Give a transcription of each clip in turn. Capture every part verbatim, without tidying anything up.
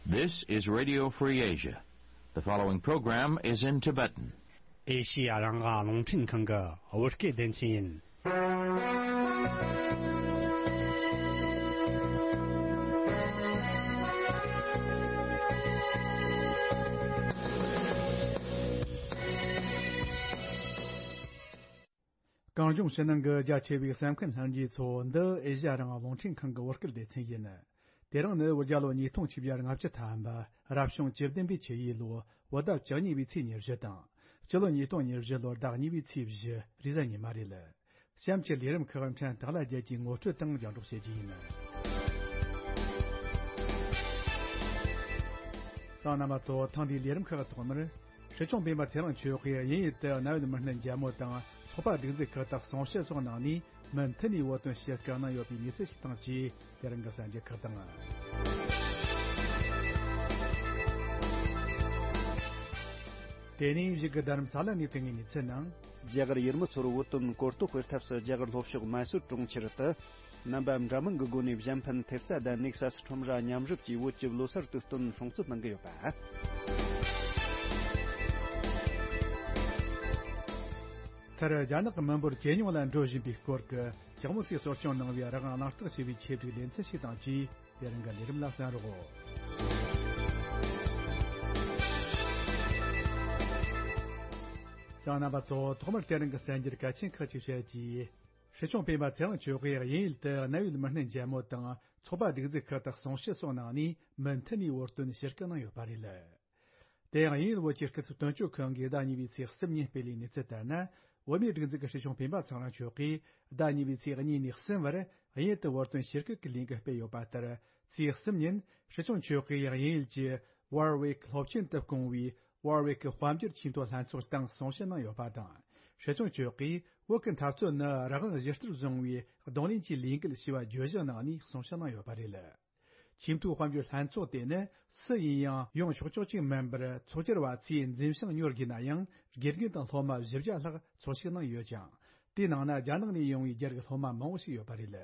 This is Radio Free Asia. The following program is in Tibetan. ཨེ་ཤི་ཡ་རང་དབང་རླུང་འཕྲིན་ཁང་གི་བོད་སྐད་སྡེ་ཚན་ཡིན། གངས་ལྗོངས་ཕྱི་ནང་གི་རྒྱ་ཆེ་བའི་གསན་མཁན་ལྷན་རྒྱས་ཚོ། འདི་ཨེ་ཤ་ཡ་རང་དབང་རླུང་འཕྲིན་ཁང་གི་བོད་སྐད་སྡེ་ཚན་ཡིན། དེ་རིང་ནི་བོད་རྒྱལ་ལོ་ཉིས་སྟོང་ཆིག་བརྒྱ་ལྔ་བཅུ་ཐམ་པ། རབ་བྱུང་བཅུ་བདུན་པའི་ཆུ་ཡོས་ལོ། བོད་ཟླ་བཅུ་གཉིས་པའི་ཚེས་ཉེར་བཞི་དང་། སྤྱི་ལོ་ཉིས་སྟོང་ཉེར་བཞི་ལོར་ཟླ་གཉིས་པའི་ཚེས་བཞི། རེས་གཟའ་ཉི་མ་རེད། གཤམ་གྱི་ལས་རིམ་ཁག་ཕྲན་དག་ལ་རྒྱལ་གྱི་ངོ་སྤྲོད་དང་རྒྱང་སྒྲོག་བྱེད་རྒྱུ་ཡིན། གསན་མཁན་རྣམ་པ་ཚོ། ཐེངས་འདིའི་ལས་རིམ་ཁག་ཐོག་མར། སྲིད་སྐྱོང་སྤེན་པ་ཚེ་རིང་མཆོག་གིས་དབྱིན་ཡུལ་དུ་གནད་ཡོད་མི་སྣ་མཇལ་མོ་དང་། ཚོགས་པ་སྒྲིག་འཛུགས་ཁག་དང་གསུང་བཤད་སོགས་གནང་ནས། མུ་མཐུད་ནས་བོད་དོན་ཞུ་སྐུལ་གནང་ཡོད་པའི་གནས་ཚུལ་ཞིག་དང་བཅས། དེ་རིང་གི་གསར་འགྱུར་ཁག་དང་། དེ་ནས་གཞུག་གི་རྡ་རམ་ས་ལ་ནས་ཐོན་པའི་གནས་ཚུལ་ནང་། རྒྱ་གར་ཡུལ་མི་ཚོར་བོད་དོན་གོ་རྟོགས་སྤེལ་ཐབས་སུ། རྒྱ་གར་ལྷོ་ཕྱོགས་མ་སུར་གྲོང་ཁྱེར་དུ། རྣམ་པ་འདྲ་མིན་གྱི་སྒོ་ནས་གཞན་ཕན་ཐེབས་རྩ་དང་ནེག་སཱ་སི་ཁྲོམ་ར་མཉམ་རུབ་ཀྱིས་བོད་ཀྱི་ལོ་གསར་དུས་སྟོན་སྲུང་བརྩི་གནང་གི་ཡོད་པ། མཐར། རྒྱ་ནག་གི་མི་འབོར་ཇེ་ཉུང་ལ་འགྲོ་བཞིན་པའི་སྐོར་གྱི་ལྕགས་མོ་སིས་གསོ་སྐྱོང་གནང་བའི་རང་དབང་གླེང་སྟེགས་ཞེས་པའི་ཆེད་སྒྲིག་ལེ་ཚན་ཞིག་དང་བཅས། དེ་རིང་གི་ལས་རིམ་ལ་གསན་རོགས། གསན་མཁན་རྣམ་པ་ཚོ། ཐོག་མར་དེ་རིང་གི་གསར་འགྱུར་གལ་ཆེན་ཁག་ཅིག་བཤད་རྒྱུ། སྲིད་སྐྱོང་སྤེན་པ་ཚེ་རིང་མཆོག་གིས་དབྱིན་ཡུལ་དུ་གནད་ཡོད་མི་སྣ་མཇལ་མོ་དང་། ཚོགས་པ་སྒྲིག་འཛུགས་ཁག་ཏུ་གསུང་བཤད་སོགས་གནང་ནས། མུ་མཐུད་ནས་བོད་དོན་ཞུ་སྐུལ་གནང་ཡོད་པ་རེད། དེ་ཡང་དབྱིན་ཡུལ་བོད་ཀྱི་སྐུ་ཚབ་དོན་གཅོད་ཁང་གིས་ཟླ་གཉིས་པའི་ཚེས་གསུམ་ཉིན་སྤེལ་བའི་གནས་ཚུལ་ལྟར་ན། བོད་མིའི་སྒྲིག་འཛུགས་ཀྱི་སྲིད་སྐྱོང་སྤེན་པ་ཚེ་རིང་མཆོག་གིས་ཟླ་གཉིས་པའི་ཚེས་གཉིས་ནས་གསུམ་བར་དབྱིན་ཡུལ་དུ་བོད་དོན་ཞུ་སྐུལ་གྱི་ལས་འགུལ་སྤེལ་ཡོད་པ་ལྟར། ཚེས་གསུམ་ཉིན་སྲིད་སྐྱོང་མཆོག་གིས་དབྱིན་ཡུལ་གྱི་ཝར་ཝིག་སློབ་ཆེན་དུ་བསྐོངས་པའི་ཝར་ཝིག་དཔལ་འབྱོར་ཆེས་མཐོའི་ལྷན་ཚོགས་སྟེང་གསུང་བཤད་གནང་ཡོད་པ་དང་། སྲིད་སྐྱོང་མཆོག་གིས་བོད་ཀྱི་འཐབ་རྩོད་ནི་རང་དབང་གཞི་རྩར་བཟུང་བའི་གདོང་ལེན་གྱི་ལས་འགུལ་ཞེས་པ་བརྗོད་གཞི་གནང་ནས་གསུང་བཤད་གནང་ཡོད་པ་རེད། ཆེས་མཐོའི་དཔལ་འབྱོར་ལྷན་ཚོགས་དེ་ནི་སུ་ཡིན་ཡང་ཡོང་ཆོག་ཆོག་ཅིག་མིན་པར། ཚོགས་བཅར་བ་ཚོས་འཛིན་བྱང་ཉོ་དགོས་ན་ཡང་། དགེ་རྒན་དང་སློབ་མ་བཞི་བརྒྱ་ལྷག་ཚོགས་ཞུགས་གནང་ཡོད་ཅིང་། དེའི་ནང་ན་རྒྱ་ནག་ནས་ཡོང་བའི་རྒྱ་རིགས་སློབ་མ་མང་བོ་ཞིག་ཡོད་པ་རེད།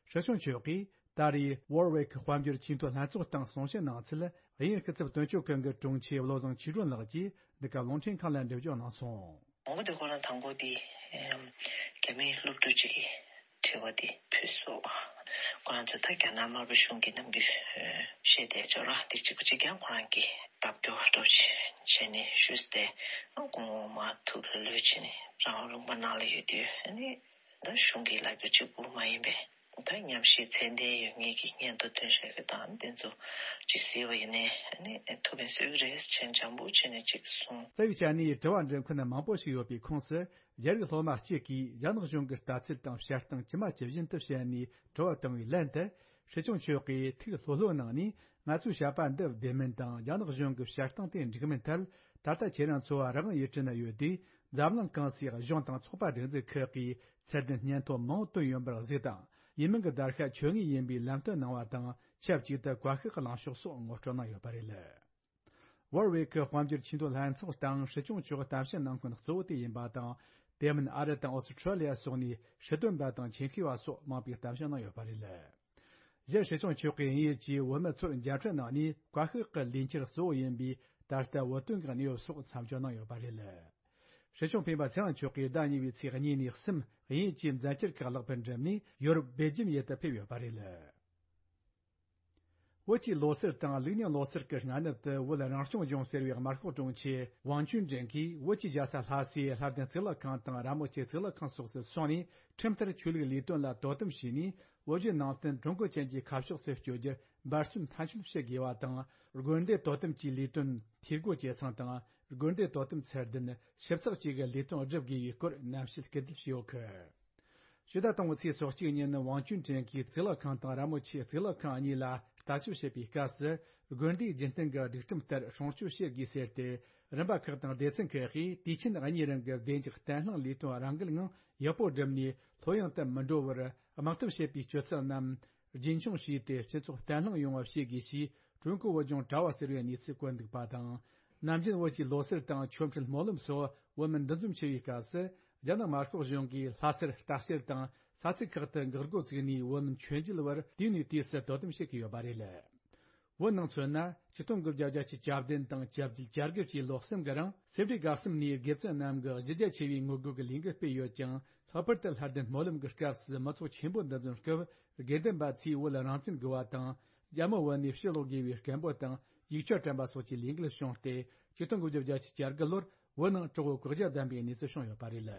སྲིད་སྐྱོང་མཆོག་གིས་ད་རེས་ཝར་ཝིག་དཔལ་འབྱོར་ཆེས་མཐོའི་ལྷན་ཚོགས་སྟེང་གསུང་བཤད་གནང་ཚུལ། དབྱིན་སྐུ་ཚབ་དོན་གཅོད་ཁང་གི་དྲུང་ཆེ་བློ་བཟང་ཆོས་སྒྲོན་ལགས་ཀྱིས་འདི་ག་རླུང་འཕྲིན་ཁང་ལ་འགྲེལ་བརྗོད་གནང་སོང་། མང་པོ་དེ་ཁོ་རང་དང་པོ་དེ་རྒྱ་མིའི་སློབ་ཕྲུག་ཅིག་གིས་དྲི་བ་དེ་ཕུལ་སོང་། ཁོ་རང་ཚོ་ད་རྒྱ་ནག་དམར་པོ་གཞུང་གིས་ནམ་རྒྱུན་བཤད་བསྡད་ཅོག་ར་དེ་གཅིག་པ་གཅིག་རྐྱང་ཁོ་རང་གིས་ལྟ་སྐྱོང་སྤྲོ་བྱས་ནས་ཞུས་ཏེ། སྐུ་ངོ་མ་ཐུགས་ལ་ལོས་བྱས་ནས་རང་དབང་ལུང་པ་ནང་ལ་ཡོད་དུས་ཨ་ནི། ད་གཞུང་གི་ལབ་རྒྱུ་གཅིག་པུ་མ་ཡིན་པས། ད་ཉམས་ཞིབ་ཚད་ལྡན་ཡོད་མཁན་གྱི་སྙན་ཐོ་ཐོན་བཞག་རྒྱུ་དང་། དེ་ཚོ་ཅིག་གཟིགས་པ་ཡིན་ནའི་ཨ་ནི་ཐུགས་ཕན་གསོས་ཀྱི་རེད་ཅེས་འཇམ་པོ་བྱས་ནས་ཅིག་གསུངས། རྩ་བའི་ཆ་ནས་དྲི་བ་འདྲི་མཁན་མང་པོ་ཞིག་ཡོད་པའི་ཁོངས་སུ། རྒྱ་རིགས་སློབ་མ་གཅིག་གིས་རྒྱ་ནག་གཞུང་གི་ལྟ་ཚུལ་དང་བཤད་སྟངས་ཇི་མ་ཇི་བཞིན་དུ་བཤད་ནས་དྲི་བ་བཏང་བའི་ལན་དུ། སྲིད་སྐྱོང་མཆོག་གིས་ཐུགས་ལྷོད་ལྷོད་གནང་ནས། ང་ཚོའི་བཤད་པ་འདི་བདེན་མིན་དང་། རྒྱ་ནག་གཞུང་གི་བཤད་སྟངས་དེ་འགྲིག་མིན་ཐད། ད་ལྟ་ཁྱེད་རང་ཚོ་རང་དབང་ཡུལ་གྲུ་ན་ཡོད་དུས། འཛམ་གླིང་གང་སའི་གཞུང་དང་ཚོགས་པ་སྒྲིག་འཛུགས་ཁག་གིས་ཚད་ལྡན་སྙན་ཐོ་མང་བོ་བཏོན་ཡོད་པར་གཟིགས་དང་། ཡུལ་མི་གི་བརྡར་ཤ་ཆོད་ངེས་ཡིན་པའི་ལམ་སྟོན་གནང་བ་དང་། ཆབས་ཅིག་ཏུ་བཀའ་ཤག་གི་ལངས་ཕྱོགས་སོགས་ངོ་སྤྲོད་གནང་ཡོད་པ་རེད། ཝར་ཝེ་ཁི་དཔལ་འབྱོར་ཆེས་མཐོའི་ལྷན་ཚོགས་སྟེང་སྲིད་སྐྱོང་མཆོག་གཏམ་བཤད་གནང་མཁན་གཙོ་བོ་དེ་ཡིན་པ་དང་། དེ་མིན་ཨ་རི་དང་ཨོ་སི་ཁྲུ་ལི་ཡ་སོགས་ནས་སྲིད་དོན་པ་དང་ཆེད་མཁས་པ་སོགས་མང་པོས་གཏམ་བཤད་གནང་ཡོད་པ་རེད། གཞན་སྲིད་སྐྱོང་མཆོག་གིས་དབྱིན་ཡུལ་གྱི་བོད་མི་ཚོར་མཇལ་འཕྲད་གནང་ནས། བཀའ་ཤག་གི་ལས་འཆར་གཙོ་བོ་ཡིན་པའི་ད་ལྟ་བོད་དོན་གྱི་གནས་བབ་སོགས་མཚམས་སྦྱོར་གནང་ཡོད་པ་རེད། སྲིད་སྐྱོང་སྤེན་པ་ཚེ་རིང་མཆོག་གིས་ཟླ་གཉིས་པའི་ཚེས་གཉིས་ནས་གསུམ། དབྱིན་ཡུལ་གྱི་མཛད་འཆར་ཁག་ལེགས་པར་འགྲུབ་ནས། ཡོ་རོབ་སྦེལ་ཇམ་ཡུལ་དུ་ཕེབས་ཡོད་པ་རེད། བོད་ཀྱི་ལོ་གསར་དང་ལུགས་རྙིང་ལོ་གསར་གྱི་སྔ་ནུབ་ཏུ། བོད་རང་སྐྱོང་ལྗོངས་ཟེར་བའི་དམར་ཤོག་དྲུང་ཆེ་ཝང་ཅུན་ཀྲེང་གིས་བོད་ཀྱི་རྒྱལ་ས་ལྷ་སའི་ལྷ་ལྡན་གཙུག་ལག་ཁང་དང་ར་མོ་ཆེ་གཙུག་ལག་ཁང་སོགས་སུ་སོང་ནས། ཁྲིམས་ལྟར་ཆོས་ལུགས་ལས་དོན་ལ་དོ་དམ་བྱས་ནས། བོད་བརྒྱུད་ནང་བསྟན་ཀྲུང་གོ་ཅན་གྱི་ཁ་ཕྱོགས་སུ་བསྐྱོད་རྒྱུར་འབད་བརྩོན་མཐའ་འཁྱོལ་བྱེད་དགོས་པ་དང་། དགོན་སྡེ་དོ་དམ་གྱི་ལས་དོན་འཐུས་སྒོ་འབྱེད་ཚང་དང་། དགོན་སྡེ་དོ་དམ་ཚད་ལྡན་ཞིབ་ཚགས་བཅས་ཀྱི་ལས་དོན་བསྒྲུབ་དགོས་པའི་སྐོར་གནམ་གཤིས་སྐུལ་འདེད་བྱས་ཡོད་སྐད། ཕྱི་ཟླ་དང་པོའི་ཚེས་སོ་གཅིག་ཉིན། ཝང་ཅུན་ཀྲེང་གིས་གཙུག་ལག་ཁང་དང་ར་མོ་ཆེ་གཙུག་ལག་ཁང་གཉིས་ལ་ལྟ་ཞིབ་བྱེད་པའི་སྐབས་སུ། དགོན་སྡེའི་རྒྱུན་གཏན་གྱི་སྒྲིག་ཁྲིམས་ལྟར་སྲུང་སྐྱོབ་བྱེད་དགོས་ཟེར་ཏེ། རིམ་པ་ཁག་དང་སྡེ་ཚན་ཁག་གིས་དུས་ཆེན་གཉིས་རིང་གི་བདེ་འཇགས་བརྟན་ལྷིང་ལས་དོན་རང་འགུལ་ངང་ཡག་པོ་བསྒྲུབས་ནས། ལྷོད་ཡངས་དུ་མི་འགྲོ་བར་དམག་འཐབ་བྱེད་པའི་སྤྱོད་ཚུལ་རྣམས་རྒྱུན་འཁྱོངས་བྱས་ཏེ། སྤྱི་ཚོགས་བརྟན་ལྷིང་ཡོང་བ་བྱེད་དགོས་ཞེས། ཀྲུང་གོ་བོད་ལྗོངས་དྲ་བ་ཟེར་བའི་གནས་ཚུལ་བཀོད་འདུག་པ་དང་། ནམ་རྒྱུན་བོད་ཀྱི་ལོ་གསར་དང་ཆོ་འཕྲུལ་སྨོན་ལམ་སོགས་བོད་མི་འདུ་འཛོམས་ཆེ་བའི་སྐབས་སུ། རྒྱ་ནག་དམར་ཤོག་གཞུང་གིས་ལྷ་སར་ལྟ་བཤལ་དང་ས་ཚིགས་ཁག་ཏུ་འགག་སྒོ་བཙུགས་ནས། བོད་མི་མཆོད་མཇལ་བར་དུས་ནས་དུས་སུ་དོ་དམ་བྱེད་ཀྱི་ཡོད་པ་རེད། བོད་ནང་མཚོན་ན། ཆིག་སྟོང་དགུ་བརྒྱ་བརྒྱད་ཅུ་གྱ་བདུན་དང་གྱ་བརྒྱད་གྱ་དགུ་བཅས་ལོ་གསུམ་གྱི་རིང་སེ་འབྲས་དགའ་གསུམ་ནས་དགེ་བཙུན་རྣམས་ཀྱིས་གཞི་རྒྱ་ཆེ་བའི་ངོ་རྒོལ་གྱི་ལས་འགུལ་སྤེལ་ཡོད་ཀྱང་། ལྷག་པར་དུ་ལྷ་ལྡན་སྨོན་ལམ་གྱི་སྐབས་སུ་མི་ཚོགས་ཆེན་པོ་འདུ་འཛོམས་སྐབས། དགེ་འདུན་པ་ཚོས་བོད་རང་བཙན་དགོས་པ་དང་། རྒྱ་མི་བོད་ནས་ཕྱིར་ལོག་དགོས་པའི་སྐད་འབོད་དང་། ཡིག་ཆ་སྤྲིན་པ་སོགས་ཀྱི་ལས་འགུལ་བྱུང་སྟེ། ཆིག་སྟོང་དགུ་བརྒྱ་བརྒྱད་ཅུ་གྱ་དགུ་ལོར་བོད་ནང་གྲོགས་པོ་བཀག་རྒྱ་བསྡམས་པའི་གནས་ཚུལ་བྱུང་ཡོད་པ་རེད།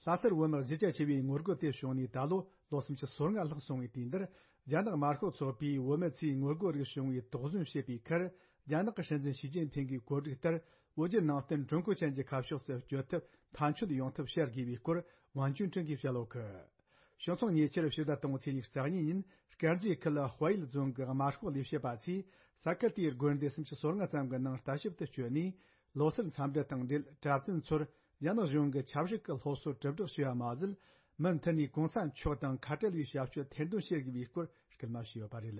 ལྷ་སར་བོད་མི་གཞི་རྒྱ་ཆེ་བའི་ངོ་རྒོལ་དེ་བྱུང་ནས་ད་ལོ་ལོ་སུམ་ཅུ་སོ་ལྔ་ལྷག་སོང་བའི་དུས་འདིར། རྒྱ་ནག་དམར་ཤོག་ཚོགས་པས་བོད་མི་ཚོའི་ངོ་རྒོལ་རིགས་བྱུང་བའི་དོགས་ཟོན་བྱེད་པའི་ཁར། རྒྱ་ནག་གི་སྲིད་འཛིན་ཞི་ཅིན་ཕིང་གི་བཀོད་སྒྲིག་ལྟར། བོད་བརྒྱུད་ནང་བསྟན་ཀྲུང་གོ་ཅན་གྱི་ཁ་ཕྱོགས་སུ་བསྐྱོད་ཐབས་མཐའ་འཁྱོལ་ཡོང་ཐབས་བྱ་དགོས་པའི་སྐོར། ཝང་ཅུན་ཀྲེང་གིས་བཤད་ཡོད་གི། བྱང་ཚོགས་ཉེ་ཆར་ཕྱི་ཟླ་དང་པོའི་ཚེས་ཉི་ཤུ་རྩ་གཉིས་ཉིན། དཀར་མཛེས་ཁུལ་དཔལ་ཡུལ་རྫོང་གི་དམར་ཤོག་ལས་བྱེད་པ་ཚོས་ས་ཁུལ་དེའི་དགོན་སྡེ་སུམ་ཅུ་སོ་ལྔ་ཙམ་གྱི་ནང་ལྟ་ཞིབ་ཏུ་བསྐྱོད་ནས། ལོ་གསར་འཚམས་འདྲི་དང་འབྲེལ། གྲྭ་བཙུན་ཚོར་རྒྱ་ནག་གཞུང་གི་ཆབ་སྲིད་ཀྱི་སློབ་གསོ་གྲུབ་སྒྲིག་བྱས་པ་མ་ཟད། མུ་མཐུད་ནས་གོང་ས་མཆོག་དང་ཁ་བྲལ་བའི་ཞབས་ཞུ་ཐེར་འདོན་བྱེད་དགོས་པའི་སྐོར་སྐུལ་མ་བྱས་ཡོད་པ་རེད།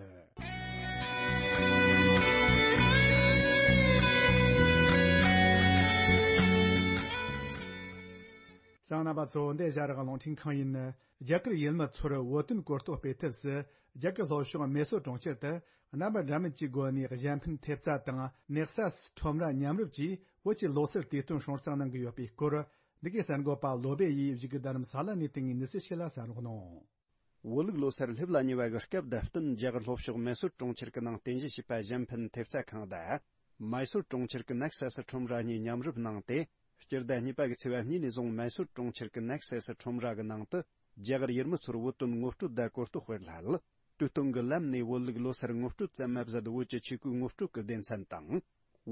གསན་མཁན་རྣམ་པ་ཚོ། འདི་ཨེ་ཤ་ཡ་རང་དབང་རླུང་འཕྲིན་ཁང་ཡིན། རྒྱ་གར་ཡུལ་མི་ཚོར་བོད་དོན་གོ་རྟོགས་སྤེལ་ཐབས་སུ། རྒྱ་གར་ལྷོ་ཕྱོགས་མེ་སོར་གྲོང་ཁྱེར་དུ། རྣམ་པ་འདྲ་མིན་གྱི་སྒོ་ནས་གཞན་ཕན་ཐེབས་རྩ་དང་ནེག་སཱ་སི་ཁྲོམ་ར་མཉམ་རུབ་ཀྱིས་བོད་ཀྱི་ལོ་གསར་དུས་སྟོན་སྲུང་བརྩི་གནང་གི་ཡོད་པའི་སྐོར། འདི་གའི་གསར་འགོད་པ་བློ་བྷེ་ཡིས་བཞུགས་སྒར་རྡ་རམ་ས་ལ་ནས་བཏང་བའི་གནས་ཚུལ་ཞིག་ལ་གསན་རོགས་གནང་། བོད་ལུགས་ལོ་གསར་སླེབས་ལ་ཉེ་བ་གི་སྐབས་དང་བསྟུན། རྒྱ་གར་ལྷོ་ཕྱོགས་མེ་སོར་གྲོང་ཁྱེར་གྱི་ནང་རྟེན་གཞི་བྱས་པ་གཞན་ཕན་ཐེབས་རྩ་ཁང་དང་། མའི་སོར་གྲོང་ཁྱེར་གྱི་ནེག་སཱ་སི་ཁྲོམ་ར་གཉིས་མཉམ་རུབ་གནང་སྟེ། སྤྱི་ཟླ་གཉིས་པ་གི་ཚེས་པ་གཉིས་ནས་བཟུང་མའི་སོར་གྲོང་ཁྱེར་གྱི་ནེག་སཱ་སི་ཁྲོམ་ར་གི་ནང་དུ། རྒྱ་གར་ཡུལ་མི་ཚོར་བོད་དོན་ངོ་སྤྲོད་དང་གོ་རྟོགས་སྤེལ་སླད། དུས་སྟོན་གྱི་ལམ་ནས་བོད་ལུགས་ལོ་གསར་ངོ་སྤྲོད་ཙམ་མ་ཟད། བོད་ཀྱི་ཆས་གོས་ངོ་སྤྲོད་ཀྱི་སྡེ་ཚན་དང་།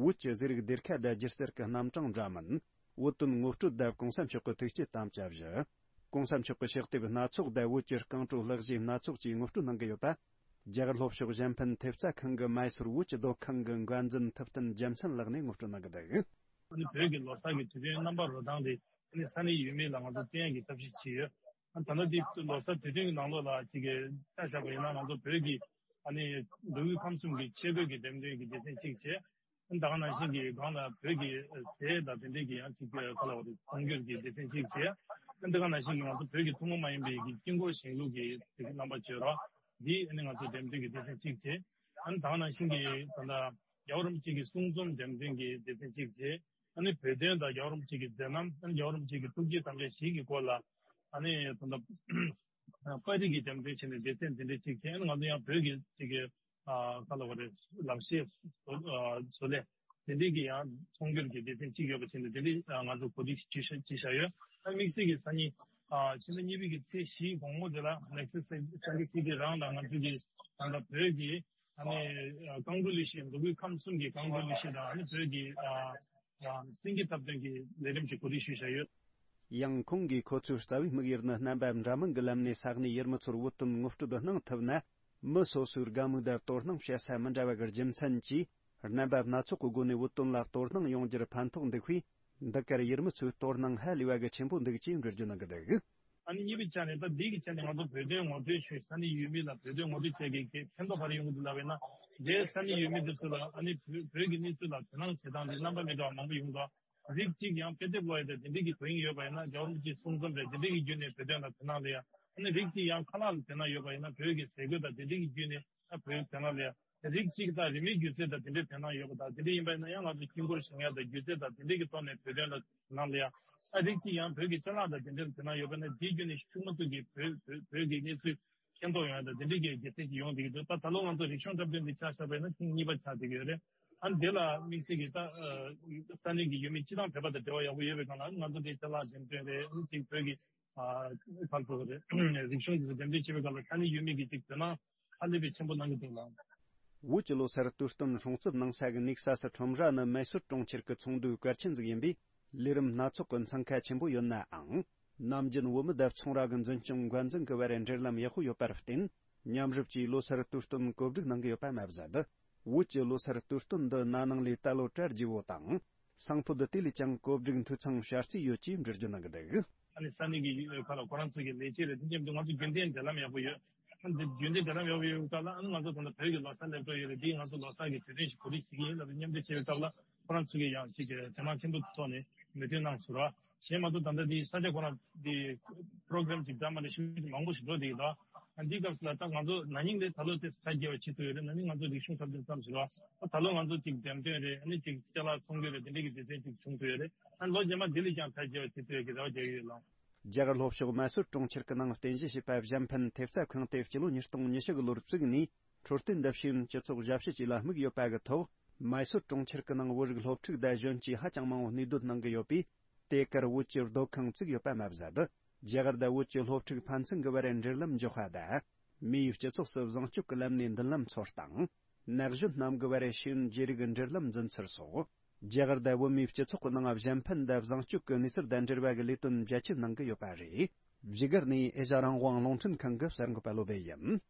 བོད་ཀྱི་ཟས་རིགས་སྡེར་ཁ་དང་སྒྱུ་རྩལ་གྱི་རྣམ་གྲངས་འདྲ་མིན། བོད་དོན་ངོ་སྤྲོད་དང་གོང་ས་མཆོག་གི་ཐུགས་བསྐྱེད་དམ་བཅའ་བཞི། གོང་ས་མཆོག་གི་ཕྱག་དེབ་སྣ་ཚོགས་དང་བོད་ཀྱི་རྐང་བྲོ་ལྷག་བཞེས་སྣ་ཚོགས་བཅས་ངོ་སྤྲོད་གནང་གི་ཡོད་པ། རྒྱ་གར་ལྷོ་ཕྱོགས་གཞན་ཕན་ཐེབས་རྩ་ཁང་གི་མའི་སོར་བོད་ཀྱི་སྡོད་ཁང་གི་འགན་འཛིན་ཐུབ་བསྟན་རྒྱལ་མཚན་ལགས་ནས་ངོ་སྤྲོད་གནང་གི་འདུག། ཨ་ནི་བོད་ཀྱི་ལོ་གསར་གྱི་དུས་སྟོན་རྣམ་པ་རོལ་སྟངས་དེ། ཨ་ནི་ས་གནས་ཡུལ་མི་ལ་ང་ཚོ་སྟོན་ཡག་གི་ཐབས་ཤེས་བྱས་ཡོད། ཨ་ནི་ད་ལྟ་འདི་ལོ་གསར་དུས་སྟོན་གྱི་ནང་ལོགས་ལ་ཅིག་གི་ཆ་བཞག་པ་ཡིན་ན། ང་ཚོ་བོད་ཀྱི་ཨ་ནི་མདོ་དབུས་ཁམས་གསུམ་གྱི་ཆས་གོས་ཀྱི་འགྲེམས་སྟོན་གྱི་སྡེ་ཚན་གཅིག་བྱས། ཨ་ནི་ད་ག་ནང་བཞིན་གྱི་སྒང་ལ་བོད་ཀྱི་ཟས་དང་དེ་འདྲའི་གི་ཡང་ཅིག་གི་ག་ལ་བ་རེད། ཚོང་སྒྱུར་གྱི་སྡེ་ཚན་གཅིག་བྱས། ཨ་ནི་ད་ག་ནང་བཞིན་གྱི་ང་ཚོ་བོད་ཀྱི་ཐུན་མོང་མ་ཡིན་པའི་གི་དཀྱིལ་འཁོར་བཞེངས་ལུགས་ཀྱི་རྣམ་པ་བརྗོད་རོགས་འདི། ཨ་ནི་ང་ཚོ་འགྲེམས་སྟོན་གྱི་སྡེ་ཚན་གཅིག་བྱས། ཨ་ནི་ད་ག་ནང་བཞིན་གྱི་ད་ལྟ་རྒྱལ་བ་རིན་པོ་ཆེ་གི་གསུང་རྩོམ་འགྲེམས་སྟོན་གྱི་སྡེ་ཚན་གཅིག་བྱས། ཨ་ནི་བོད་དོན་དང་རྒྱལ་བ་རིན་པོ་ཆེ་གི་མཛད་རྣམ། ཨ་ནི་རྒྱལ་བ་རིན་པོ་ཆེ་གི་ཐུགས་བསྐྱེད་དམ་བཅའ་བཞི་གི་སྐོར་ལ། ཨ་ནི་ད་ལྟ་པར་རིས་ཀྱི་འགྲེམས་སྟོན་བྱས་ནས་སྡེ་ཚན་འདི་འདྲ་གཅིག་བྱས། ཨ་ནི་ང་ཚོ་ཡང་བོད་ཀྱི་ཅིག་གི་ཨ་ག་ལ་བ་རེད། ལག་ཤེས་བཟོ་ཨ་བཟོ་ལས་དེ་འདྲའི་གི་ཡང་ཚོང་སྒྱུར་གྱི་སྡེ་ཚན་གཅིག་ཡོད་པ་བྱས་ནས། དེ་འདྲའི་ཨ་ང་ཚོ་གོ་སྒྲིག་བྱས་བཞག་ཡོད། ཨ་དམིགས་བསལ་གྱི་སང་ཉིན་ཨ་ཕྱི་ཟླ་གཉིས་པའི་གི་ཚེས་བཞིའི་དགོང་མོ་དེ་ལ་ནེག་སི་སན་ཊར་སི་ཊི་རང་ལ་ང་ཚོ་གི་ད་ལྟ་བོད་ཀྱི་ཨ་ནི་ཨ་རྐང་བྲོ་ལེགས་བཤད། མདོ་དབུས་ཁམས་གསུམ་གྱི་རྐང་བྲོ་ལེགས་བཤད་དང་། ཨ་ནི་བོད་ཀྱི་ཨ་ཨ་སེང་གེ་འཐབ་སྟོན་གྱི་ལས་རིམ་གྱི་གོ་སྒྲིག་ཞུས་བཞག་ཡོད། ཡང་ཁོང་གིས་ཁོ་ཚོའི་རྩ་བའི་དམིགས་ཡུལ་ནི་རྣམ་པ་འདྲ་མིན་གྱི་ལམ་ནས་ས་གནས་ཡུལ་མི་ཚོར་བོད་དོན་ངོ་སྤྲོད་གནང་ཐུབ་ན། མི་སོ་སོའི་དགའ་མོས་དང་དོ་སྣང་བྱེད་ས་མི་འདྲ་བ་གི་རྒྱུ་མཚན་གྱིས། རྣམ་པ་སྣ་ཚོགས་ཀྱི་སྒོ་ནས་བོད་དོན་ལ་དོ་སྣང་ཡོང་རྒྱུར་ཕན་ཐོགས་འདུག་པས། འདི་གར་ཡུལ་མི་ཚོའི་དོ་སྣང་ཧ་ལས་པ་གི་ཆེན་པོ་འདུག་ཅེས་འགྲེལ་བརྗོད་གནང་གི་འདུག། ཨ་ནི་གཉིས་པའི་ཆ་ནས། ད་འདི་གི་ཆ་ནས་ང་ཚོ་བོད་དོན་ངོ་སྤྲོད་ཞུས། ས་གནས་ཡུལ་མི་ལ་བོད་དོན་ངོ་སྤྲོད་བྱས་ཀྱི་ཕན་ཐོགས་ག་རེ་ཡོང་གི་འདུག་ལབ་པ་ཡིན་ན། དེ་ས་གནས་ཡུལ་མི་འདི་ཚོ་ལ་ཨ་ནི་བོད་བོད་ཀྱི་གནས་ཚུལ་ལ་དོ་སྣང་བྱེད་སྟངས་འདི་རྣམ་པ་མི་འདྲ་བ་མང་པོ་ཡོང་འདུག། རིགས་གཅིག་ཡང་དཔེ་དེབ་ཀློག་ཡ་དང་དེ་འདྲའི་གི་དོན་སྙིང་ཡོད་པ་ཡིན་ན། རྒྱལ་བ་རིན་པོ་ཆེའི་གསུང་རྩོམ་རེད། དེ་འདྲའི་གི་བརྒྱུད་ནས་བོད་དོན་ལ་དོ་སྣང་སླེབས་ཡ། ཨ་ནི་རིགས་གཅིག་ཡང་ཁ་ལག་ལ་དོ་སྣང་ཡོད་པ་ཡིན་ན། བོད་ཀྱི་ཟས་གོས་དང་དེ་འདྲའི་གི་བརྒྱུད་ནས་ཨ་བོད་དོན་ལ་སླེབས་ཡ། རིགས་གཅིག་དང་རིན་མེད་སྒྱུ་རྩལ་དང་དེ་འདྲའི་དོ་སྣང་ཡོད་པ་དང་། དེ་འདྲ་ཡིན་པ་ཡིན་ན་ཡང་ང་ཚོ་དཀྱིལ་འཁོར་བཞེངས་ཡ་དང་སྒྱུ་རྩལ་དང་དེ་འདྲའི་གི་ཐོག་ནས་བོད་དོན་ལ་དོ་སྣང་སླེབས་ཡ། ཨ་རིགས་གཅིག་ཡང་བོད་ཀྱི་ཅ་ལག་དང་དེ་འདྲའི་དོ་སྣང་ཡོད་པ་ན། དེའི་བརྒྱུད་ནས་ཤུགས་མ་ཐུག་གི་བོད་བོད་བོད་ཀྱི་གནས་ཚུལ་མཁྱེན་རྟོགས་ཡོང་ཡ་དང་དེ་འདྲའི་གི་སྒྱུ་རྩལ་ཅིག་ཡོང་བསྡད་ཀྱི་འདུག། ད་ད་ལོ་ང་ཚོ་རིག་གཞུང་འཁྲབ་སྟོན་འདི་ཆ་བཞག་པ་ཡིན་ན་ཐེངས་གཉིས་པ་ཆགས་བསྡད་ཀྱི་ཡོད་རེད། ཨ་ནི་དེ་ལ་དམིགས་བསལ་གྱི་ད་ཨ་ས་གནས་ཀྱི་ཡུལ་མི་སྤྱི་བཏང་བོད་པ་དང་འབྲེལ་བ་ཡག་པོ་ཡོད་པའི་སྒང་ལ། ང་ཚོ་དེ་ཅ་ལག་འགྲེམས་སྟོན་རེད། ཨ་ནི་དེ་བོད་ཀྱི་ཨ་ག་རེ་ཟེར་དགོས་རེད། རིག་གཞུང་དེ་ཚོ་འགྲེམས་སྟོན་བྱེད་པའི་སྐབས་ལ་ས་གནས་ཡུལ་མི་གིས་ཅིག་དོ་སྣང་ཧ་ལས་པའི་ཆེན་པོ་གནང་གི་འདུག་ལ། བོད་ཀྱི་ལོ་སར་དུས་སྟོན་སྲུང་བརྩི་གནང་ས་གི་ནེག་སཱ་སི་ཁྲོམ་ར་ནི་མེ་སོར་གྲོང་ཁྱེར་གྱི་ཚོགས་འདུའི་གལ་ཆེན་ཟིག་ཡིན་པས། ལས་རིམ་སྣ་ཚོགས་ཀྱི་འཚང་ཁ་ཆེན་པོ་ཡོད་ནའང་། ནམ་རྒྱུན་བོད་མི་དང་ཚོང་ར་གི་འཛིན་སྐྱོང་འགན་འཛིན་གྱི་བར་འབྲེལ་ལམ་ཡག་པོ་ཡོད་པར་བརྟེན། མཉམ་རུབ་ཀྱིས་ལོ་སར་དུས་སྟོན་གོ་སྒྲིག་གནང་གི་ཡོད་པ་མ་ཟད། བོད་ཀྱི་ལོ་སར་དུས་སྟོན་འདི་ན་ནིང་ལས་ད་ལོ་གྲ་རྒྱས་པོ་དང་། སང་ཕོད་དེ་ལས་ཀྱང་གོ་སྒྲིག་འཐུས་ཚང་བྱ་རྩིས་ཡོད་ཅེས་འགྲེལ་བརྗོད་གནང་གི་འདུག། ཨ་ནི་ས་གནས་ཀྱི་ཁ་ལ་ཁོ་རང་ཚོ་གི་ལས་བྱེད་རེད། དེ་མཉམ་དུ་ང་ཚོ་རྒྱུན་ལྡན་འབྲེལ་ལམ་ཡག་པོ་ཡོད། ཨ་ནི་རྒྱུན་ལྡན་འབྲེལ་ལམ་ཡག་པོ་ཡོད་སྐབས་ལ། ཨ་ནི་ང་ཚོ་ད་ལྟ་བོད་ཀྱི་ལོ་གསར་སླེབས་འགྲོ་ཡོད་རེད། འདིས་ང་ཚོ་ལོ་གསར་གྱི་དུས་སྟོན་ཞིག་གོ་སྒྲིག་བྱེད་ཀྱི་ཡིན་ལབ་ནས་མཉམ་འབྲེལ་བྱེད་པའི་སྐབས་ལ། ཁོ་རང་ཚོ་གིས་ཡང་ཅིག་དོ་སྣང་ཆེན་པོ་ཐོག་ནས་མོས་མཐུན་གནང་ཟེར་བ། གཞན་མ་གཏོགས་ད་ལྟ་འདི་ས་ཆ་ཁོ་རང་འདི་པྲོ་གྷ་རམ་ཅིག་འདྲ་མི་འདྲ་ཞིག་མང་པོ་ཞིག་འགྲོ་བསྡད་ཀྱི་འདུག། འདིའི་སྐབས་སུ་ལ་ད་ང་ཚོ་ན་ནིང་ལས་ད་ལོ་དེ་ཚོ་ཐལ་རྒྱལ་བ་བྱེད་ཐུབ་ཡོད་རེད། ན་ནིང་ང་ཚོ་རིག་གཞུང་འཁྲབ་སྟོན་ཙམ་ཞིག་རེད་བ། ད་ལོ་ང་ཚོ་ཅིག་འགྲེམས་སྟོན་རེད། ཨ་ནི་ཅིག་ཅ་ལག་ཚོང་སྡེ་རེད། དེ་འདྲའི་གི་སྡེ་ཚན་ཅིག་བྱུང་ཐུབ་ཡོད་རེད། ཨ་ནི་ལོ་རྗེས་མ་འདི་ལས་ཀྱང་ཐལ་རྒྱལ་བ་བྱེད་ཐུབ་ཡོད་ཀྱི་རེ་བ་རྒྱག་གི་ཡོད་ལགས། རྒྱ་གར་ལྷོ་ཕྱོགས་མ་སུར་གྲོང་ཁྱེར་གྱི་ནང་རྟེན་གཞི་བྱས་པ་གཞན་ཕན་ཐེབས་རྩ་ཁང་དེ་སྤྱི་ལོ་ཉིས་སྟོང་ཉི་ཤུ་གི་ལོར་བཙུགས་ནས། འཕྲོད་བསྟེན་འདི་བྱས་སྤྱི་ཚོགས་ཞབས་ཞུ་བཅས་ལ་དམིགས་ཡོད་པ་གི་ཐོག་མའི་སོར་གྲོང་ཁྱེར་གྱི་ནང་བོད་རིགས་སློབ་ཕྲུག་དང་གཞོན་སྐྱེས་ཧ་ཅང་མང་བོ་གནས་སྡོད་གནང་གི་ཡོད་པས། དེ་གར་བོད་ཀྱི་སྡོད་ཁང་བཙུགས་ཡོད་པ་མ་ཟད། རྒྱ་གར་དང་བོད་ཀྱི་སློབ་ཕྲུག་ཕན་ཚུན་གྱི་བར་འབྲེལ་ལམ་འཇོག་པ་དང་། མིའི་སྤྱི་ཚོགས་སུ་བཟང་སྤྱོད་ཀྱི་ལམ་ནས་མདུན་ལམ་འཚོལ་སྟངས། ན་གཞོན་རྣམས་ཀྱི་བར་ཤེས་ཡོན་བརྗེ་རེས་ཀྱི་འབྲེལ་ལམ་འཛིན་ཚུལ་སོགས། རྒྱ་གར་དང་བོད་མིའི་སྤྱི་ཚོགས་ཀྱི་ནང་གཞན་ཕན་དང་བཟང་སྤྱོད་ཀྱི་གནས་ཚུལ་དང་འབྲེལ་བ་གི་ལས་དོན་རྒྱ་ཆེ་གནང་གི་ཡོད་པ་རེད། བཞུགས་སྒར་ནས་ཨེ་ཤ་རང་དབང་རླུང་འཕྲིན་ཁང་གི་གསར་འགོད་པ་བློ་བྷེ་ཡིན།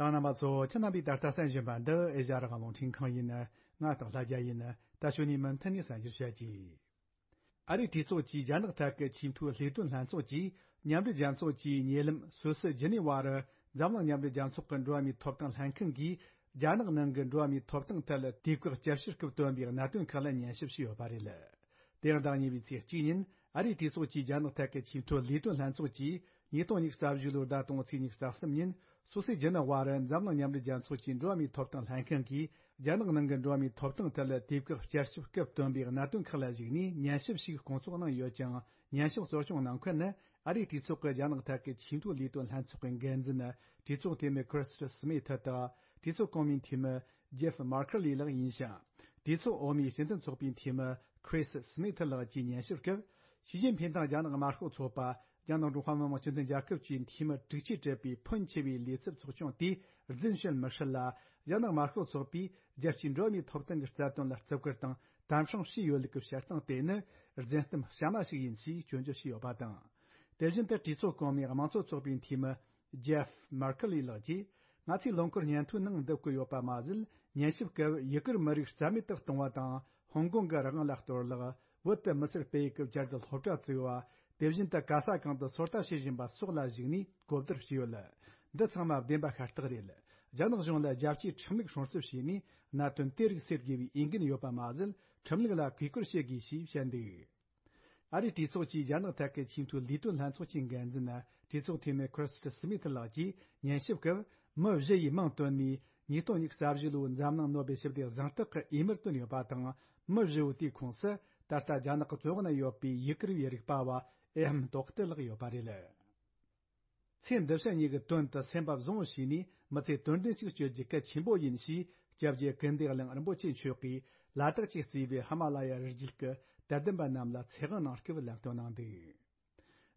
གསན་མཁན་རྣམ་པ་ཚོ། ཁྱེད་རྣམ་པས་ད་ལྟ་གསན་བཞིན་པ་འདི་ཨེ་ཤ་རང་དབང་རླུང་འཕྲིན་ཁང་ཡིན། ང་སྟག་ལྷ་རྒྱལ་ཡིན། ད་ཞུ་ནས་མུ་མཐུད་ནས་གསན་རྒྱུར་བྱ་གྱིས། ཨ་རིའི་གྲོས་ཚོགས་ཀྱི་རྒྱ་ནག་ཐད་ཀྱི་ཆེས་མཐོའི་ལས་དོན་ལྷན་ཚོགས་ཀྱིས་མཉམ་འབྲེལ་རྒྱལ་ཚོགས་ཀྱི་ཉེ་ལམ་སུད་སི་ཇི་ནི་ཝ་རུ་འཛམ་གླིང་མཉམ་འབྲེལ་རྒྱལ་ཚོགས་ཀྱི་འགྲོ་བ་མིའི་ཐོབ་ཐང་ལྷན་ཁང་གིས་རྒྱ་ནག་ནང་གི་འགྲོ་བ་མིའི་ཐོབ་ཐང་ཐད་དུས་བཀག་བསྐྱར་ཞིབ་སྐབས་བཏོན་པའི་གནད་དོན་ཁག་ལ་ཉན་ཞིབ་བྱས་ཡོད་པ་རེད། དེ་ཡང་ཟླ་གཉིས་པའི་ཚེས་གཅིག་ཉིན་ཨ་རིའི་གྲོས་ཚོགས་ཀྱི་རྒྱ་ནག་ཐད་ཀྱི་ཆེས་མཐོའི་ལས་དོན་ལྷན་ཚོགས་ཀྱིས་ཉིས་སྟོང་ཉི་ཤུ་རྩ་བཞི་ལོའི་ཟླ་དང་པོའི་ཚེས་ཉི་ཤུ་རྩ་གསུམ་ཉིན་སུད་སི་ཇི་ནི་ཝ་རུ་འཛམ་གླིང་མཉམ་འབྲེལ་རྒྱལ་ཚོགས་ཀྱི་འགྲོ་བ་མིའི་ཐོབ་ཐང་ལྷན་ཁང་གིས་རྒྱ་ནག་ནང་གི་འགྲོ་བ་མིའི་ཐོབ་ཐང་ཐད་ལ་དུས་བཀག་བསྐྱར་ཞིབ་སྐབས་བཏོན་པའི་གནད་དོན་ཁག་ལ་གཞིགས་ནས་ཉན་ཞིབ་ཞིག་སྐོང་ཚོགས་གནང་ཡོད་ཀྱང་། ཉན་ཞིབ་གཙོ་སྐྱོང་གནང་མཁན་ནི་ཨ་རིའི་གྲོས་ཚོགས་ཀྱི་རྒྱ་ནག་ཐད་ཀྱི་ཆེས་མཐོའི་ལས་དོན་ལྷན་ཚོགས་ཀྱི་འགན་འཛིན་གྲོས་ཚོགས་འཐུས་མི་ཁྲིས་སི་མི་ཐི་དང་གྲོས་ཚོགས་གོང་མའི་འཐུས་མི་ཇེབ་མར་ཁར་ལི་ལགས་ཡིན་ཞིང་། གྲོས་ཚོགས་འོག་མའི་སྤྱི་མཐུན་ཚོགས་པའི་འཐུས་མི་ཁྲིས་སི་མི་ཐི་ལགས་ཀྱིས་ཉན་ཞིབ་སྐབས། ཞི་ཅིན་ཕིང་དང་རྒྱ་ནག་དམར་ཤོག་ཚོགས་པ་རྒྱ་ནག་ཀྲུང་ཧྭ་མི་དམངས་སྤྱི་མཐུན་རྒྱལ་ཁབ་ཀྱི་འཐུས་མི་དྲུག་ཅུས་གྲུབ་པའི་ཕོན་ཆེ་བའི་ལས་ཚབ་ཚོགས་ཆུང་དེས་རྫུན་བཤད་མི་སྲིད་ལ། རྒྱ་ནག་དམར་ཤོག་ཚོགས་པས་རྒྱལ་སྤྱིའི་འགྲོ་བ་མིའི་ཐོབ་ཐང་གི་རྩ་དོན་ལ་བརྩི་བཀུར་དང་དམ་སྲུང་བྱས་ཡོད་ལུགས་ཀྱི་བཤད་སྟངས་དེ་ནི་རྫུན་གཏམ་གཤའ་མ་ཞིག་ཡིན་ཞེས་སྐྱོན་བརྗོད་བྱས་ཡོད་པ་དང་། དེ་བཞིན་དུ་གྲོས་ཚོགས་གོང་མའི་དམངས་གཙོ་ཚོགས་པའི་འཐུས་མི་ཇེབ་མར་ཁར་ལི་ལགས་ཀྱིས། ང་ཚོས་ལོ་འཁོར་སྙན་ཐོའི་ནང་འདུ་བཀོད་ཡོད་པ་མ་ཟད། ཉན་ཞིབ་སྐབས་ཡུ་གུར་མི་རིགས་རྩ་མེད་དུ་གཏོང་བ་དང་། ཧོང་ཀོང་གི་རང་དབང་ལ་གཏོར་བརླག་བོད་དུ་མི་སེར་སྤེལ་ཡུལ་གྱི་བསྐྱར་དུ་སློབ་གྲྭ་བཙུགས་པ། དེ་བཞིན་དུ་ག་ས་གང་དུ་སོ་ལྟ་བྱེད་བཞིན་པ་སོགས་ལ་གཞིགས་ནས་གོ་བསྡུར་བྱས་ཡོད། འདི་ཚང་མ་བདེན་པ་ཤ་སྟག་རེད། རྒྱ་ནག་གཞུང་ལ་རྒྱལ་སྤྱིའི་ཁྲིམས་ལུགས་སྲུང་བརྩི་བྱས་ནས་གནད་དོན་དེ་རིགས་སེལ་དགོས་པའི་འོས་འགན་ཡོད་པ་མ་ཟད། ཁྲིམས་ལུགས་ལ་གུས་བཀུར་བྱེད་དགོས་ཞེས་བཤད་འདུག་ཨ་རིའི་གྲོས་ཚོགས་ཀྱི་རྒྱ་ནག་ཐད་ཀྱི་ཆེས་མཐོའི་ལས་དོན་ལྷན་ཚོགས་ཀྱི་འགན་འཛིན་གྲོས་ཚོགས་འཐུས་མི་ཁྲིས་སི་མི་ཐི་ལགས་ཀྱིས་ཉན་ཞིབ་སྐབས། མི་བཞི་ཡིས་མིང་བཏོན་ནས་ཉིས་སྟོང་ཉི་ཤུ་རྩ་བཞི་ལོའི་འཛམ་གླིང་ནོ་བེལ་ཞི་བདེ་གཟེངས་རྟགས་ཀྱི་འོས་མིར་བཏོན་ཡོད་པ་དང་། མི་བཞི་བོ་དེའི་ཁོངས་སུ་ད་ལྟ་རྒྱ་ནག་གི་བཙོན་འོག་ན་ཡོད་པའི་ཡུ་གུར་བའི་རིག་པ་བ་ཨེ་ཧམ་ཏོག་ཏི་ལགས་ཡོད་པ་རེད། ཚེ་འདི་ཕྱི་གཉིས་ཀྱི་དོན་དུ་སེམས་པ་བཟང་བོ་བྱས་ནས་མི་ཚེ་དོན་ལྡན་ཞིག་སྤྱོད་རྒྱུ་གལ་ཆེན་པོ་ཡིན་ཞེས་སྐྱབས་རྗེ་ཀིརྟི་དབྱངས་རིན་པོ་ཆེ་མཆོག་གིས་ལ་དྭགས་ཀྱིས་གཙོས་པའི་ཧི་མ་ལ་ཡ་རི་རྒྱུད་ཀྱི་དད་ལྡན་པ་རྣམས་ལ་ཚེ་དབང་གནང་སྐབས་ལམ་སྟོན་གནང་འདུག་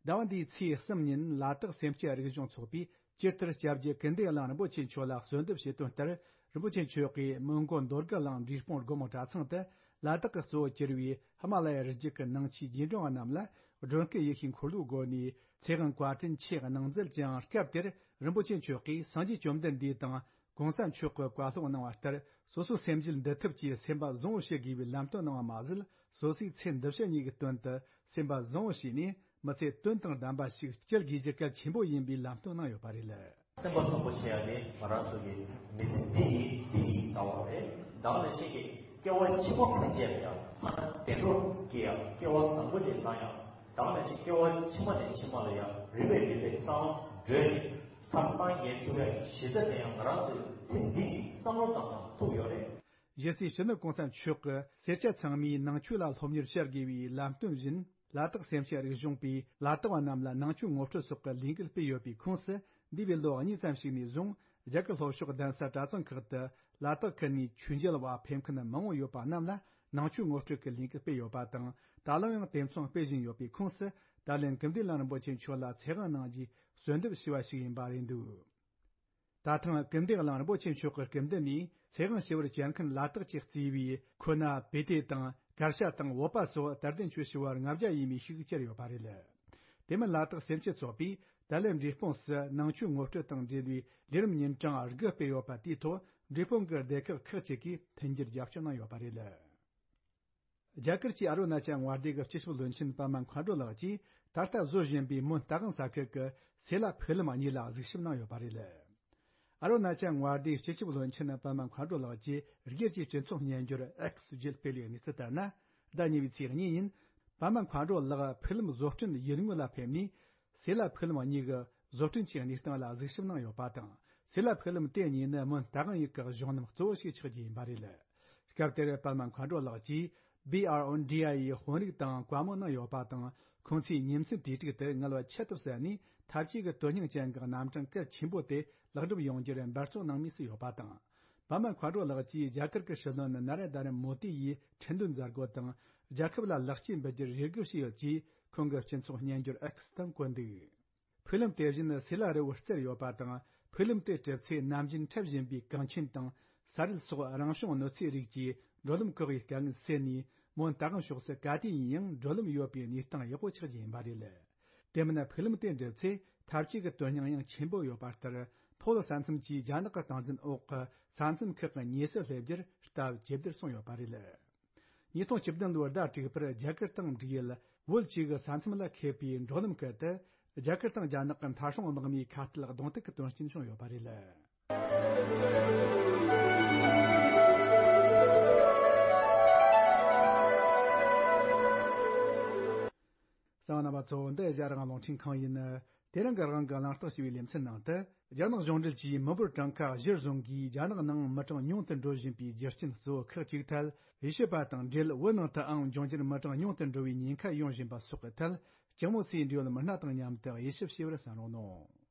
ཟླ་བ་འདིའི་ཚེས་གསུམ་ཉིན་ལ་དྭགས་སེམས་ཅན་རིག་གཞུང་ཚོགས་པས་སྤྱིར་ལྟར་སྐྱབས་རྗེ་ཀིརྟི་དབྱངས་རིན་པོ་ཆེ་མཆོག་ལ་གསོལ་འདེབས་བྱེད་དོན་ལྟར། རིན་པོ་ཆེ་མཆོག་གིས་མོན་གྷོ་མདོ་སྒར་གླིང་འབྲས་སྤུངས་སྒོ་མོ་གྲྭ་ཚང་དུ་ལ་དྭགས་ཀྱི་གཙོ་བོར་གྱུར་བའི་ཧི་མ་ལ་ཡ་རི་རྒྱུད་ཀྱི་ནང་ཆོས་རྗེས་འབྲང་བ་རྣམས་ལ་སྒྲོལ་དཀར་ཡེ་ཤེས་འཁོར་ལོའི་སྒོ་ནས་ཚེ་དབང་བཀའ་དྲིན་ཆེ་གནང་མཛད་ཀྱང་། སྐབས་དེར་རིན་པོ་ཆེ་མཆོག་གིས་སངས་རྒྱས་བཅོམ་ལྡན་འདས་དང་གོང་ས་མཆོག་གི་བཀའ་སློབ་གནང་བ་ལྟར། སོ་སོ་སེམས་རྒྱུད་འདུལ་ཐབས་ཀྱི་སེམས་པ་བཟང་བོ་བྱེད་དགོས་པའི་ལམ་སྟོན་གནང་བ་མ་ཟད། སོ་སོའི་ཚེ་འདི་ཕྱི་གཉིས་ཀྱི་དོན་དུ་སེམས་པ་བཟང་བོ་བྱས་ནས་མི་ཚེ་དོན་དང་ལྡན་པ་ཞིག་སྐྱེལ་དགོས་རྒྱུ་གལ་ཆེན་པོ་ཡིན་པའི་ལམ་སྟོན་གནང་ཡོད་པ་རེད། སེམས་པ་བཟང་པོ་བྱེད་ཡ་ནི་ང་རང་ཚོ་གི་མི་ཚེ་འདི་ཡིན་འདི་ཡིན་ཟེར་བ་རེད། ད་ག་ནང་བཞིན་གྱི་སྐྱེ་བ་ཕྱི་མ་ཕན་ཆད་ཡང་ཐ་ན་བདེ་འགྲོ་སྐྱེ་ཡང་སྐྱེ་བ་བཟང་པོ་ཅིག་བླང་ཡང་། ད་ག་ནང་བཞིན་སྐྱེ་བ་ཕྱི་མ་ནས་ཕྱི་མ་ལ་ཡང་རིམ་པས་རིམ་པས་སངས་བྲོས་ནས་ཐར་སངས་རྒྱས་ཐུབ་ཡ་གཞི་རྩ་དེ་ཡང་ང་རང་ཚོའི་ཚེ་འདི་ཡིན་བསམ་བློ་བཏང་ཡང་ཐུབ་ཡོད་རེད། གཞི་རྩའི་སྤྱི་ནོར་གོང་ས་མཆོག་གི་སེར་སྐྱ་ཚང་མས་ནང་ཆོས་ལ་སློབ་གཉེར་བྱ་དགོས་པའི་ལམ་སྟོན་བཞིན། ལ་དྭགས་སེམས་ཅན་རིག་གཞུང་པས་ལ་དྭགས་པ་རྣམས་ལ་ནང་ཆོས་ངོ་སྤྲོད་སོགས་ཀྱི་ལས་འགུལ་སྤེལ་ཡོད་པའི་ཁོངས་སུ། འདས་པའི་ལོ་གཉིས་ཙམ་ཞིག་ནས་བཟུང་རྒྱ་གར་ལྷོ་ཕྱོགས་གདན་ས་གྲྭ་ཚང་ཁག་ཏུ་ལ་དྭགས་ཁུལ་ནས་ཆོས་མཇལ་བ་ཕེབས་མཁན་མང་བོ་ཡོད་པ་རྣམས་ལ་ནང་ཆོས་ངོ་སྤྲོད་ཀྱི་ལས་འགུལ་སྤེལ་ཡོད་པ་དང་། ད་ལམ་ཡང་དེ་མཚུངས་སྤེལ་བཞིན་ཡོད་པའི་ཁོངས་སུ། ད་ལན་ཀིརྟི་དབྱངས་རིན་པོ་ཆེ་མཆོག་ལ་ཚེ་དབང་གནང་རྒྱུའི་གསོལ་འདེབས་ཞུས་པ་ཞིག་ཡིན་པ་རེད་འདུག་ད་ཐེངས་ཀིརྟི་དབྱངས་རིན་པོ་ཆེ་མཆོག་གི་སྐུ་མདུན་ནས་ཚེ་དབང་ཞུ་བར་བཅར་མཁན་ལ་དྭགས་ཀྱིས་གཙོས་པའི་ཁོ་ན་བེ་ཏེ་དང་གར་ཞ་དང་བོད་པ་སོགས་དད་ལྡན་ཆོས་ཞུ་བ་ལྔ་བརྒྱ་ཡས་མས་ཤིག་བཅར་ཡོད་པ་རེད། དེ་མིན་ལ་དྭགས་སེམས་ཅན་ཚོགས་པས་ད་ལན་འབྲས་སྤུངས་སུ་ནང་ཆོས་ངོ་སྤྲོད་དང་འབྲེལ་བའི་ལས་རིམ་ཉིན་གྲངས་དགུ་སྤེལ་ཡོད་པ་དེའི་ཐོག་འབྲས་སྤུངས་ཀྱི་སྡེ་ཁག་ཁག་ཅིག་གིས་མཐུན་འགྱུར་རྒྱབ་སྐྱོར་གནང་ཡོད་པ་རེད། རྒྱ་གར་གྱི་ཨ་རུ་ན་ཅལ་མངའ་སྡེ་གི་སྤྱི་ཁྱབ་བློན་ཆེན་པད་མ་མཁའ་འགྲོ་ལགས་ཀྱིས་ད་ལྟ་བཟོ་བཞིན་པའི་མོན་རྟ་དབང་ས་ཁུལ་གྱི་སེ་ལ་ཕུག་ལམ་གཉིས་ལ་གཟིགས་ཞིབ་གནང་ཡོད་པ་རེད། ཨ་རུ་ན་ཅལ་མངའ་སྡེའི་སྤྱི་ཁྱབ་བློན་ཆེན་པདྨ་མཁའ་འགྲོ་ལགས་ཀྱིས་སྒེར་གྱི་སྤྱི་ཚོགས་སྨྱན་སྦྱོར་X་བརྒྱུད་སྤེལ་བའི་གནས་ཚུལ་ལྟར་ན། ཟླ་གཉིས་པའི་ཚེས་གཉིས་ཉིན། པདྨ་མཁའ་འགྲོ་ལགས་ཕུག་ལམ་བཟོ་སྐྲུན་ཡུལ་དངོས་ལ་ཕེབས་ནས། སེ་ལ་ཕུག་ལམ་གཉིས་ཀྱི་བཟོ་སྐྲུན་གྱི་གནས་སྟངས་ལ་གཟིགས་ཞིབ་གནང་ཡོད་པ་དང་། སེ་ལ་ཕུག་ལམ་དེ་གཉིས་ནི་མོན་རྟ་དབང་ཡུལ་གྱི་གཞུང་ལམ་གཙོ་བོ་ཞིག་ཆགས་རྒྱུ་ཡིན་པ་རེད། སྐབས་དེར་པདྨ་མཁའ་འགྲོ་ལགས་ཀྱིས་B R O D I ཡི་དཔོན་རིགས་དང་བཀའ་མོལ་གནང་ཡོད་པ་དང་། ཁོང་ཚོས་ཉིན་མཚན་དུས་དྲུག་ཏུ་ངལ་བ་ཁྱད་དུ་བསད་ནས་འཐབ་ཇུས་ཀྱི་དོན་སྙིང་ཅན་གྱི་རྣམ་གྲངས་གལ་ཆེན་པོ་དེ་ལེགས་འགྲུབ་ཡོང་རྒྱུར་འབད་བརྩོན་གནང་མུས་སུ་ཡོད་པ་དང་། པདྨ་མཁའ་འགྲོ་ལགས་ཀྱིས་རྒྱ་གར་གྱི་སྲིད་བློན་ན་རེན་དྲ་མོ་དི་ཡི་ཁྲི་འདོན་མཛད་སྒོ་དང་། རྒྱལ་ཁབ་ལ་ལེགས་སྐྱེས་འབུལ་རྒྱུར་རེ་སྒུག་བྱས་ཡོད་ཅེས་ཁོང་གི་སྤྱི་ཚོགས་སྨྱན་སྦྱོར་X་སྟེང་བཀོད་འདུག་ཕུག་ལམ་དེ་བཞིན་སེ་ལ་རི་བོར་བརྩེགས་ཡོད་པ་དང་། ཕུག་ལམ་དེ་གྲུབ་ཚེ་ནམ་རྒྱུན་འཁྲབ་བཞིན་པའི་གངས་ཆེན་དང་ས་རུད་སོགས་རང་བྱུང་གནོད་འཚེའི་རིགས་ཀྱིས་འགྲོ་ལམ་བཀག་ཡའི་དཀའ་ངལ་སེལ་ནས། མོན་རྟ་དབང་ཕྱོགས་སུ་ག་དུས་ཡིན་ཡང་འགྲོ་ལམ་ཡོད་པའི་གནས་སྟངས་ཡག་པོ་ཆགས་རྒྱུ་ཡིན་པ་རེད། དེ་མིན་ཕུག་ལམ་དེ་འགྲུབ་ཚེ་འཐབ་ཇུས་ཀྱི་དོན་སྙིང་ཡང་ཆེན་པོ་ཡོད་པ་ལྟར། ཕོ་ལོ་ས་མཚམས་ཀྱི་རྒྱ་ནག་གི་སྟངས་འཛིན་འོག་གི་ས་མཚམས་ཁག་གི་ཉེ་སར་སླེབས་རྒྱུར་སྟབས་ཇེ་བདེར་སོང་ཡོད་པ་རེད། ཉིས་སྟོང་བཅུ་བདུན་ལོའི་ཟླ་དྲུག་པར་རྒྱ་གར་དང་འབྲུག་ཡུལ་བོད་བཅས་ཀྱི་ས་མཚམས་ལ་ཁེལ་བའི་འགྲོ་ལམ་ཁུལ་དུ། རྒྱ་གར་དང་རྒྱ་ནག་གི་མཐའ་སྲུང་དམག་མིའི་ཁ་གཏད་གདོང་ཐུག་གི་དོན་རྐྱེན་བྱུང་ཡོད་པ་རེད། གསན་པ་རྣམ་པ་ཚོ། འདི་ཨེ་ཤ་ཡ་རང་དབང་རླུང་འཕྲིན་ཁང་ཡིན། དེ་རིང་གི་རང་དབང་གི་གླེང་སྟེགས་ཞེས་པའི་ལེ་ཚན་ནང་དུ། རྒྱ་ནག་གཞུང་འབྲེལ་གྱིས་མི་འབོར་གྲངས་ཀ་གཞིར་བཟུང་གིས་རྒྱ་ནག་ནང་མི་གྲངས་ཉུང་དུ་འགྲོ་བཞིན་པའི་རྒྱུ་རྐྱེན་གཙོ་བོ་ཁག་ཅིག་ཐད་དབྱེ་ཞིབ་པ་དང་འབྲེལ། བོད་ནང་དུའང་འབྱུང་འགྱུར་མི་གྲངས་ཉུང་དུ་འགྲོ་བའི་ཉེན་ཁ་ཡོང་བཞིན་པ་སོགས་ཀྱི་ཐད་ལྕགས་མོ་སེའི་འབྲེལ་ཡོད་མི་སྣ་དང་མཉམ་དུ་དབྱེ་ཞིབ་བྱས་པར་གསན་རོགས་གནང་།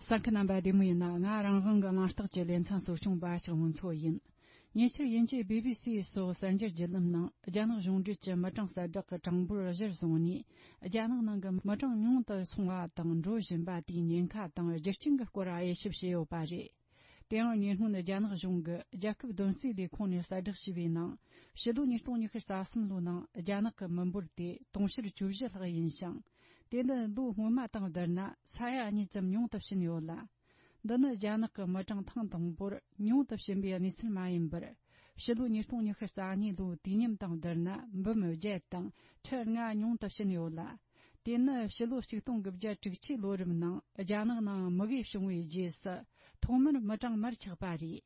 གསན་མཁན་རྣམ་པ་བདེ་མོ་ཡིན་ན། ང་རང་དབང་གི་གླེང་སྟེགས་ཀྱི་ལེ་ཚན་གཙོ་སྐྱོང་པ་ཞིག་མུན་ཚོ་ཡིན། ཉེ་ཆར་དབྱིན་ཇིའི་བི་བི་སི་སོགས་གསར་འགྱུར་བརྒྱུད་ལམ་ནང་རྒྱ་ནག་གཞུང་འབྲེལ་གྱི་མི་གྲངས་གསལ་བསྒྲགས་ཀྱི་གྲངས་འབོར་གཞིར་བཟུང་ནས། རྒྱ་ནག་ནང་གི་མི་གྲངས་ཉུང་དུ་སོང་བ་དང་འགྲོ་བཞིན་པ་དེའི་ཉེན་ཁ་དང་རྒྱུ་རྐྱེན་གྱི་སྐོར་དབྱེ་ཞིབ་བྱས་ཡོད་པ་རེད། དེའང་ཉེ་སྔོན་རྒྱ་ནག་གཞུང་གི་རྒྱལ་ཁབ་བདུན་སྲིད་ལས་ཁུངས་ནས་གསལ་བསྒྲགས་བྱས་པའི་ནང་། ཕྱི་ལོ་ཉིས་སྟོང་ཉི་ཤུ་རྩ་གསུམ་ལོའི་ནང་རྒྱ་ནག་གི་མི་འབོར་དེ་དུང་ཕྱུར་བཅུ་བཞི་ལྷག་ཡིན་ཞིང་། དེ་ནི་ལོ་སྔོན་མ་དང་བསྡུར་ན་ས་ཡ་གཉིས་ཙམ་ཉུང་དུ་ཕྱིན་ཡོད་ལ། འདི་ནི་རྒྱ་ནག་གི་མི་གྲངས་ཐེངས་དང་པོར་ཉུང་དུ་ཕྱིན་པའི་གནས་ཚུལ་མ་ཡིན་པར། ཕྱི་ལོ་ཉིས་སྟོང་ཉི་ཤུ་རྩ་གཉིས་ལོའི་དུས་མཉམ་དང་བསྡུར་ན་འབུམ་བརྒྱད་དང་ཁྲི་ལྔ་ཉུང་དུ་ཕྱིན་ཡོད་ལ། དེ་ནི་ཕྱི་ལོ་ཆིག་སྟོང་དགུ་བརྒྱ་དྲུག་ཅུའི་ལོ་རབས་ནང་རྒྱ་ནག་ནང་མུ་གེ་བྱུང་བའི་རྗེས་སུ་ཐོག་མར་མི་གྲངས་མར་ཆག་པ་རེད།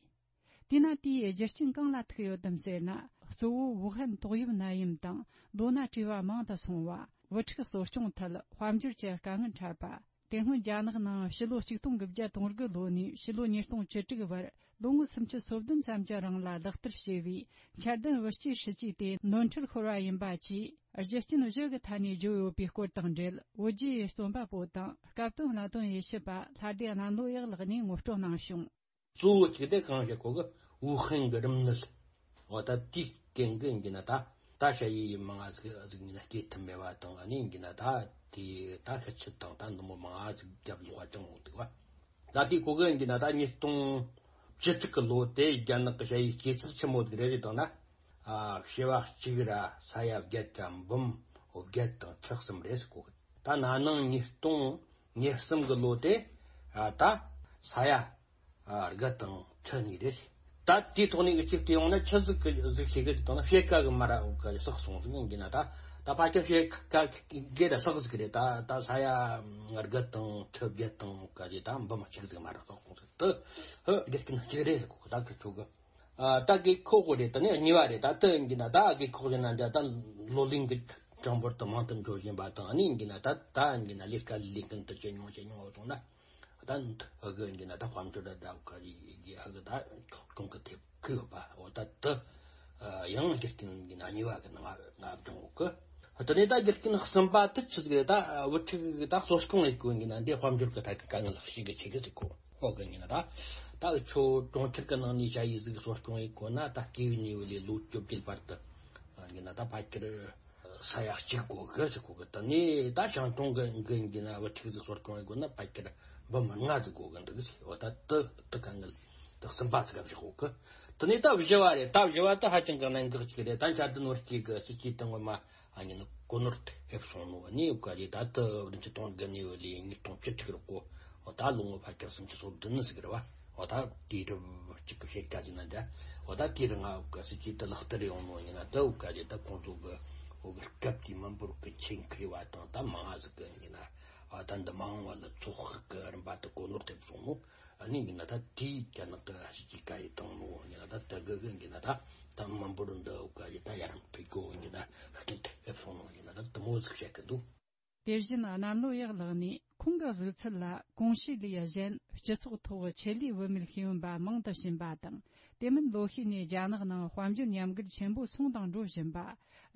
དེས་ན་དེའི་རྒྱུ་རྐྱེན་གང་ལ་ཐུག་ཡོད་དམ་ཟེར་ན། གཙོ་བོ་ཝུ་ཧན་ཏོག་དབྱིབས་ནད་ཡམས་དང་ལོ་ན་བཀྲུས་པ་མང་དུ་སོང་བ། བུ་ཕྲུག་གསོ་སྐྱོང་ཐད་དཔལ་འབྱོར་གྱི་དཀའ་ངལ་འཕྲད་པ། དེ་སྔོན་རྒྱ་ནག་ནང་ཕྱི་ལོ་ཆིག་སྟོང་དགུ་བརྒྱ་དོན་དགུ་ལོ་ནས་ཕྱི་ལོ་ཉིས་སྟོང་བཅུ་དྲུག་བར་ལོ་ངོ་སུམ་ཅུ་སོ་བདུན་ཙམ་གྱི་རིང་ལ་ལག་བསྟར་བྱས་པའི་འཆར་ལྡན་བུ་སྐྱེས་སྲིད་ཇུས་དེ་ནོར་འཁྲུལ་ཤོར་བ་ཡིན་པ་བཅས་རྒྱུ་རྐྱེན་བཞི་གི་ཐད་ནས་བརྗོད་ཡོད་པའི་སྐོར་དང་འབྲེལ། བོད་བརྒྱུད་རྩོམ་པ་པོ་དང་སྐབས་དོན་གནད་དོན་དབྱེ་ཞིབ་པ་ལྷ་སྡེ་གནམ་ལོ་ཡག་ལགས་ནས་ངོ་སྤྲོད་གནང་བྱུང་། གཙོ་བོ་གཅིག་དེ་གང་བྱེད་གོ་གི་ཝུ་ཧན་གི་རིམས་ནད། འོ་ད་དེའི་རྐྱེན་གྱིས་ཡིན་གྱི་ན་ད་ད་ཞ་ཡི་ཡི་མང་ང་ཟིག་ཟིག་ཡིན་ན་སྐྱེ་ཐུབ་མེད་པ་དང་། ཨ་ནི་ཡིན་གྱི་ན་ད་དེ་ད་ཤི་ཆུ་དང་ད་འདི་མོ་མང་ང་ཟིག་རྒྱབ་ལོག་ཅང་འོང་འདུག་བ། ད་དེའི་གོ་གི་ཡིན་གྱི་ན་ད་ཉིས་སྟོང་བཅུ་དྲུག་གི་ལོ་དེ་རྒྱ་ནག་གི་ཞ་ཡི་སྐྱེ་ཚགས་ཆེན་མོ་ཟིག་རེད་རེད་དང་ན། ཨ་བྱེ་བ་གཅིག་ར་ས་ཡ་བརྒྱད་ར་འབུམ་བརྒྱད་དང་ཁྲི་གསུམ་རེད་ཟེར་གོ་གི། ད་ན་ནིང་ཉིས་སྟོང་ཉེར་གསུམ་གི་ལོ་དེ་ཨ་ད་ས་ཡ་ཨ་དགུ་དང་ཁྲི་གཉིས་རེད། ད་དེའི་ཐོག་ནས་གཅིག་དེ་ཡོང་ན་ཆི་ཟིག་གི་ཟིག་ཤེས་གི་ཟིག་དང་ན་ཕྱེད་ཀ་གི་མ་ར་གི་བསགས་སོང་ཟིག་ཡིན་གྱི་ན། ད་ད་ཕལ་ཆེར་ཕྱེད་ཀ་གི་ར་བསགས་ཟིག་རེད། ད་ད་ས་ཡ་དགུ་དང་ཁྲི་བརྒྱད་དང་ག་རེ་ད་འབུམ་གཅིག་ཟིག་མ་ར་བསགས་སོང་ཟིག། དེ་ཧི་དགེ་རྒན་གཅིག་རེད་ཟེར་གོ་གི། ད་ཁི་ཆོ་གི་ཨ་ད་དགེ་ཁོག་གོ་རེད། ད་ནི་གཉིས་པ་རེད། ད་དེ་ཡིན་གྱི་ན་ད་དགེ་ཁོག་ཟེར་ན་འདྲ། ད་ལོ་ལོན་གྱི་གྲངས་འབོར་དུ་མང་དུ་འགྲོ་བཞིན་པ་དང་། ཨ་ནི་ཡིན་གྱི་ན་ད་ད་ཡིན་གྱི་ན་ལས་ཀ་ལས་མཁན་དུ་ཇེ་ཉུང་ཇེ་ཉུང་སོང་ན། ད་ཨ་གི་ཡིན་གྱི་ན་ད་དཔལ་འབྱོར་ད་ད་ག་རེ་གི་ཨ་གི་ད་གོང་གི་ཐེབས་གི་ཡོད་པ། འོ་ད་དེ་ཡང་རྒྱུ་རྐྱེན་ཡིན་གྱི་ན་གཉིས་པ་གི་ནང་ང་བགྲང་འོ་གི། དེ་ནས་ད་རྒྱུ་རྐྱེན་གསུམ་པ་དེ་ཆི་ཟིག་རེད། ད་བུ་ཕྲུག་གི་ད་གསོ་སྐྱོང་ཡེད་གོ་ཡིན་གྱི་ན་འདི་དཔལ་འབྱོར་གི་ཐད་ཀྱི་དཀའ་ངལ་ཤིག་གི་ཆེ་གི་ཟིག་གོ། ཨོ་གི་ཡིན་ན་ད་ད་ཁྱོད་གྲོང་ཁྱེར་གི་ནང་ནས་ཞ་ཡི་ཟིག་གསོ་སྐྱོང་ཡེད་གོ་ན། ད་སྐྱེས་པའི་ནས་བུ་ལས་ལོ་བཅོ་བརྒྱད་བར་དུ་ཡིན་ན་ད་ཕལ་ཆེར་ས་ཡ་གཅིག་དགོས་གི་ཟེར་གོ་གི། དེ་ནས་ད་ཞང་གྲོང་གི་གི་ཡིན་ན་བུ་ཕྲུག་ཟིག་གསོ་སྐྱོང་ཡེད་དགོས་ན་ཕལ་ཆེར་འབུམ་ལྔ་ཟིག་དགོས་གི་འདུག་ཟེར། འོ་ད་དེ་དེ་དཀའ་ངལ་དེ་གསུམ་པ་ཟིག་ག་ཟེར་གོ་གི། དེ་ནས་ད་བཞི་བ་རེད། ད་བཞི་བ་དེ་ཧ་ཅང་གི་གནད་འགག་ཅིག་རེད། ད་འཆར་ལྡན་བུ་སྐྱེས་གི་སྲིད་ཇུས་དེ་ངོ་མ་ཨ་ནི་གོ་ནོར་ཐེབས་སོང་ནོ། ཨ་ནི་ག་རེ་ད་དེ་བདུན་ཅུ་དོན་དགུ་ནས་བུ་ལས་ཉིས་སྟོང་བཅུ་དྲུག་རེད་གོ། འོ་ད་ལོ་ངོ་ཕལ་ཆེར་སུམ་ཅུ་སོ་བདུན་ཟིག་རེད་བ། འོ་ད་དེའི་རིབ་གཅིག་གི་བཤད་ཀ་ཅིག་ན་འདྲ། འོ་ད་དེའི་རིང་ང་འུ་ག་སྲིད་ཀྱི་དུ་ལག་བསྟར་ཡོང་ནོ་ཡིན་ན་དུ་འུ་ག་ཅིག་ད་ཁོང་ཚོ་གི་འུ་གི་སྐབས་དེའི་མི་འབོར་གི་ཆེད་མཁས་པ་དང་ད་མང་ང་ཟིག་གི་ཡིན་ན། ཨ་ད་འདི་མ་འོངས་བ་ལ་ཚོགས་ཤིག་གི་རིམ་པ་དུ་གོ་ནོར་ཐེབས་སོང་ནོ། ཨ་ནི་ཡིན་ན་ད་དེའི་རྒྱ་ནག་གི་སྲིད་ཀྱི་བཀའ་ཡི་བཏང་ནོ་ཡིན་ན་ད་དུ་གི་གི་ཡིན་ན་ད་ད་མི་འབོར་འདི་འུ་ག་ཅིག་ད་ཡར་འཕེལ་གོ་ཡིན་ན་ཤུགས་རྐྱེན་ཐེབས་སོང་ནོ་ཡིན་ན་ད་དུ་མོ་ཟིག་བཤད་གི་འདུག། དེ་བཞིན་གནམ་ལོ་ཡག་ལགས་ནས་ཁོང་གི་གཟིགས་ཚུལ་ལ། གོང་ཞུས་ལས་གཞན་སྤྱི་ཚོགས་ཐོག་ཆེད་ལས་བུད་མེད་ཤེས་ཡོན་པ་མང་དུ་ཕྱིན་པ་དང་། དེ་མིན་ལོ་ཤས་ནས་རྒྱ་ནག་ནང་དཔལ་འབྱོར་ཉམས་རྒུད་ཆེན་པོ་སོང་དང་འགྲོ་བཞིན་པ།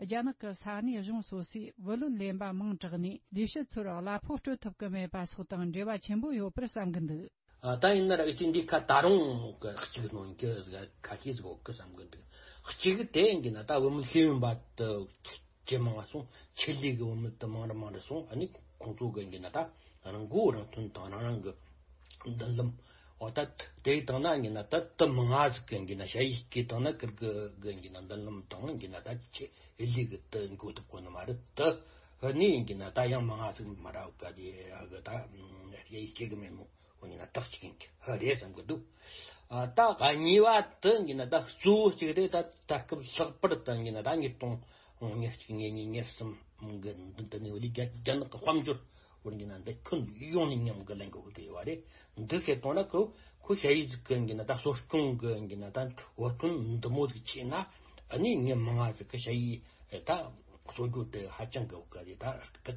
རྒྱ་ནག་གི་ས་གནས་གཞུང་སོ་སོས་བུ་ལོན་ལེན་པ་མང་དྲགས་ནས་ལས་བྱེད་ཚོར་གླ་ཕོགས་སྤྲོད་ཐུབ་ཀྱི་མེད་པ་སོགས་དང་འབྲེལ་བ་ཆེན་པོ་ཡོད་པར་བསམ་གྱི་འདུག། ཨ། ད་ཡིན་ན་ར་ཨི་ཅི་འདི་ཁ་ད་རུང་གི་གཅིག་ནོན་གི་ཁ་ཤས་ཟིག་ཡོད་གི་བསམ་གི་འདུག། གཅིག་དེ་ཡིན་གི་ན་ད་བུད་མེད་ཤེས་ཡོན་པ་དུ་ཇེ་མང་ང་སོང་། ཆེད་ལས་གི་བུད་མེད་དུ་མང་རུ་མང་རུ་སོང་། ཨ་ནི་ཁོང་ཚོ་གི་ཡིན་གི་ན་ད་རང་མགོ་རང་ཐོན་དང་རང་རང་གི་མདུན་ལམ། འོ་ད་དེ་བཏང་ན་ཡིན་གི་ན་ད་དུ་མང་ང་ཟིག་གི་ཡིན་གི་ན་ཞ་ཡིས་སྐྱེས་བཏང་ན་ཀིར་གི་གི་ཡིན་གི་ན་མདུན་ལམ་དང་ཡིན་གི་ན་ད་ཆེད་ལས་གི་དུ་འགོ་ཐུབ་གོ་ནི་མ་རེད། དུ་ཨ་ནི་ཡིན་གི་ན་ད་ཡང་མང་ང་ཟིག་མ་ར་བ་གི་ད་ཞ་ཡིས་སྐྱེ་གི་མེད་ནོ། འོ་ཡིན་ན་ད་གཅིག་ཡིན་གྱི་ཧ་རེད་བསམ་གི་འདུག། ཨ། ད་གཉིས་པ་དེ་ཡིན་ན་ད་གཙོ་བོ་གཅིག་རེད། ད་ད་སྐབས་ལྷག་པར་དུ་ཡིན་ན་ད་ཉིས་སྟོང་ཉེར་གཅིག་ཉེར་གཉིས་ཉེར་གསུམ་གི་འདི་འདི་ནས་འོ་ལི་རྒྱ་རྒྱ་ནག་གི་དཔལ་འབྱོར་འོ་ཡིན་ན་འདི་ཁྱོན་ཡོངས་ནས་ཉམས་གི་ལན་གི་འོ་དེ་ཡོད་རེད། འདི་ཁེ་གཏོང་ན་ཁོ་ཁོ་ཞ་ཡིས་ཟིག་གི་ཡིན་ན་ད་གསོ་སྐྱོང་གི་ཡིན་ན་ད་འོ་ཐོན་འདི་མོ་ཟིག་བྱས་ན་ཨ་ནི་ངས་མང་ང་ཟིག་གི་ཞ་ཡིས་ད། གསོ་རྒྱུ་དེ་ཧ་ཅང་གི་འོ་ག་དེ་ད་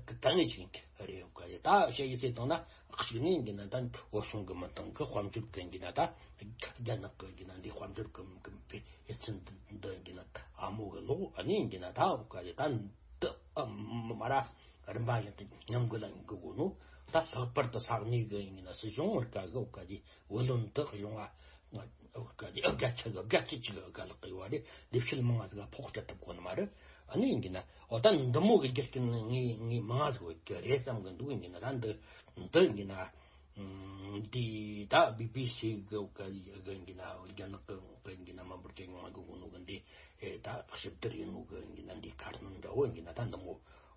དཀའ་ངལ་ཅིག་རེད། འོ་ག་དེ་ད་ཞ་ཡིས་ཟེར་བཏང་ན་གཅིག་ནས་ཡིན་ན་ད་བོད་གཞུང་གི་མི་དང་གི་དཔལ་འབྱོར་གི་ཡིན་ན་ད་རྒྱ་ནག་གི་ཡིན་ན་འདི་དཔལ་འབྱོར་གི་གི་ཕན་ཡིད་ཚན་འདི་ཡིན་ན་ཨ་མོ་གི་ལོག་ཨ་ནི་ཡིན་ན་ད་འོ་ག་དེ་ད་འདི་ཨ་མ་ར་རིམ་པ་བཞིན་དུ་ཉམས་གི་ལ་ཡིན་གི་གོ་ནོ། ད་ལྷག་པར་དུ་ས་གནས་གི་ཡིན་ན་སྲིད་གཞུང་འོ་ག་གི་འོ་ག་དེ་བུ་ལོན་དུ་གཞུང་བ། ཨ་ག་དེ་ཨ་ག་ཆ་གི་ག་ཆི་ཆི་གི་ག་ལག་གི་ཡོད་རེད། ལས་བྱེད་མང་ང་ཟིག་ཕོགས་སྤྲད་ཐུབ་གོ་ནི་མ་རེད། ཨ་ནི་ཡིན་གྱི་ན་འོ་ད་འདི་མོ་གི་རྒྱུ་རྐྱེན་ངས་ངས་མང་ང་ཟིག་ཡོད་ཀྱི་རེད་བསམ་གི་འདུག། ཡིན་གྱི་ན་ད་འདི་འདི་ཡིན་གྱི་ན་འདི་ད་བི་བི་སི་གི་ག་ཡིན་གྱི་ན་རྒྱ་ནག་གི་ཡིན་གྱི་ན་མི་འབོར་ཇེ་ཉུང་ང་གི་གོ་ནོ་གི་འདི་ད་ཞིབ་བསྡུར་ཡིན་ནོ་གི་ཡིན་གྱི་ན་འདི་ཁ་སྣོན་འདྲ་བོ་ཡིན་གྱི་ན་ད་འདི་མོ་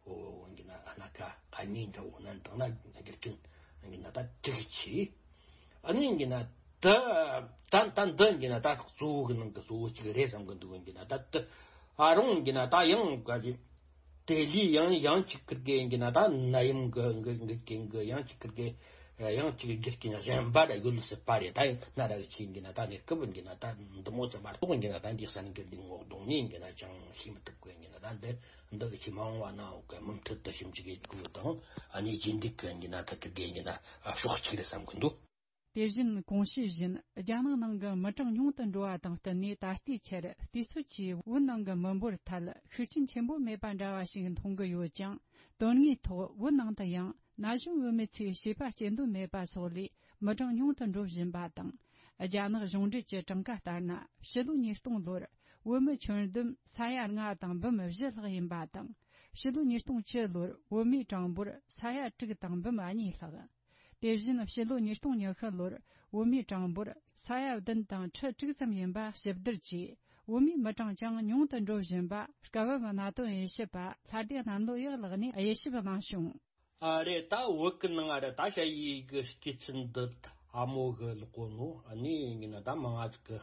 འོ་ཡིན་གྱི་ན་སྣ་ཁ་ཨ་ནི་འདྲ་བོ་ན་འདང་ན་རྒྱུ་རྐྱེན་ཡིན་གྱི་ན་ད་དྲུག་ཆེ། ཨ་ནི་ཡིན་གྱི་ན། ད་ད་ད་འདི་ཡིན་ན་ད་གཙོ་བོ་གི་ནང་གི་གཙོ་བོ་གཅིག་རེད་བསམ་གི་འདུག། ཡིན་གྱི་ན་ད་ད་ཨ་རུང་ཡིན་གྱི་ན་ད་ཡང་ག་གི་དེ་ལས་ཡང་ཡང་གཅིག་ཁིར་གི་ཡིན་གྱི་ན་ད་ནད་ཡམས་གི་གི་གི་གི་ཡང་གཅིག་ཁིར་གི་ཡང་གཅིག་རྒྱུ་རྐྱེན་གཞན་པ་ར་ཡོད་སྲིད་པ་རེད། ད་ཡང་སྣ་ར་གི་ཆེ་ཡིན་གྱི་ན་ད་གནས་སྐབས་ཡིན་གྱི་ན་ད་འདི་མོ་ཙམ་མ་གཏོགས་ཡིན་གྱི་ན་ད་འདི་གསར་འགྱུར་འདི་ངོ་གདོང་ནས་ཡིན་གྱི་ན་ཅང་ཤེས་མི་ཐུབ་གི་ཡིན་གྱི་ན་ད་འདི་འདི་གི་ཆེ་མ་འོངས་བ་ན་འོ་གི་མུ་མཐུད་དུ་ཞིབ་འཇུག་གི་དགོས་དང་ཨ་ནི་རྗེས་འདེད་གི་ཡིན་གྱི་ན་ད་ཁིར་གི་ཡིན་གྱི་ན་ཕྱོགས་གཅིག་རེད་བསམ་གི་འདུག། དེ་བཞིན་གོང་ཞུས་བཞིན་རྒྱ་ནག་ནང་གི་མི་གྲངས་ཉུང་དུ་འགྲོ་བ་དང་བསྟུན་ནས། ད་ལྟའི་ཆར་དུས་ཚོད་ཀྱིས་བོད་ནང་གི་མི་འབོར་ཐད་ཤུགས་རྐྱེན་ཆེན་པོ་མེད་པ་འདྲ་བ་ཞིག་མཐོང་གི་ཡོད་ཀྱང་། དོན་དངོས་ཐོག་བོད་ནང་དུ་ཡང་ན་གཞོན་བུད་མེད་ཚོས་བྱིས་པ་སྐྱེ་འདོད་མེད་པ་སོགས་ལས་མི་གྲངས་ཉུང་དུ་འགྲོ་བཞིན་པ་དང་། རྒྱ་ནག་གཞུང་འབྲེལ་གྱི་གྲངས་ཀ་ལྟར་ན། ཕྱི་ལོ་ཉིས་སྟོང་ལོར་བོད་མི་ཁྱོན་བསྡོམས་ས་ཡ་ལྔ་དང་འབུམ་བཞི་ལྷག་ཡིན་པ་དང་། ཕྱི་ལོ་ཉིས་སྟོང་བཅུ་ལོར་བོད་མིའི་གྲངས་འབོར་ས་ཡ་དྲུག་དང་འབུམ་གཉིས་ལྷག། དེ་བཞིན་ཕྱི་ལོ་ཉིས་སྟོང་ཉི་ཤུ་ལོར་བོད་མིའི་གྲངས་འབོར་ས་ཡ་བདུན་དང་ཁྲི་དྲུག་ཙམ་ཡིན་པ་ཞིབ་བསྡུར་གྱིས། བོད་མིའི་མི་གྲངས་ཀྱང་ཉུང་དུ་འགྲོ་བཞིན་པ། སྐབས་བབ་གནད་དོན་དབྱེ་ཞིབ་པ་ལྷ་སྡེ་གནམ་ལོ་ཡག་ལགས་ནས་དབྱེ་ཞིབ་གནང་བྱུང་། ཨ་རེད། ད་བོད་ཀྱི་ནང་ང་རེད། ད་ཞ་ཡིས་གི་སྐྱེས་ཚུལ་འདི་ཨ་མོ་གི་ལོག་གོ་ནོ་ཨ་ནི་ཡིན་ན་ད་མང་ང་ཟིག་གི་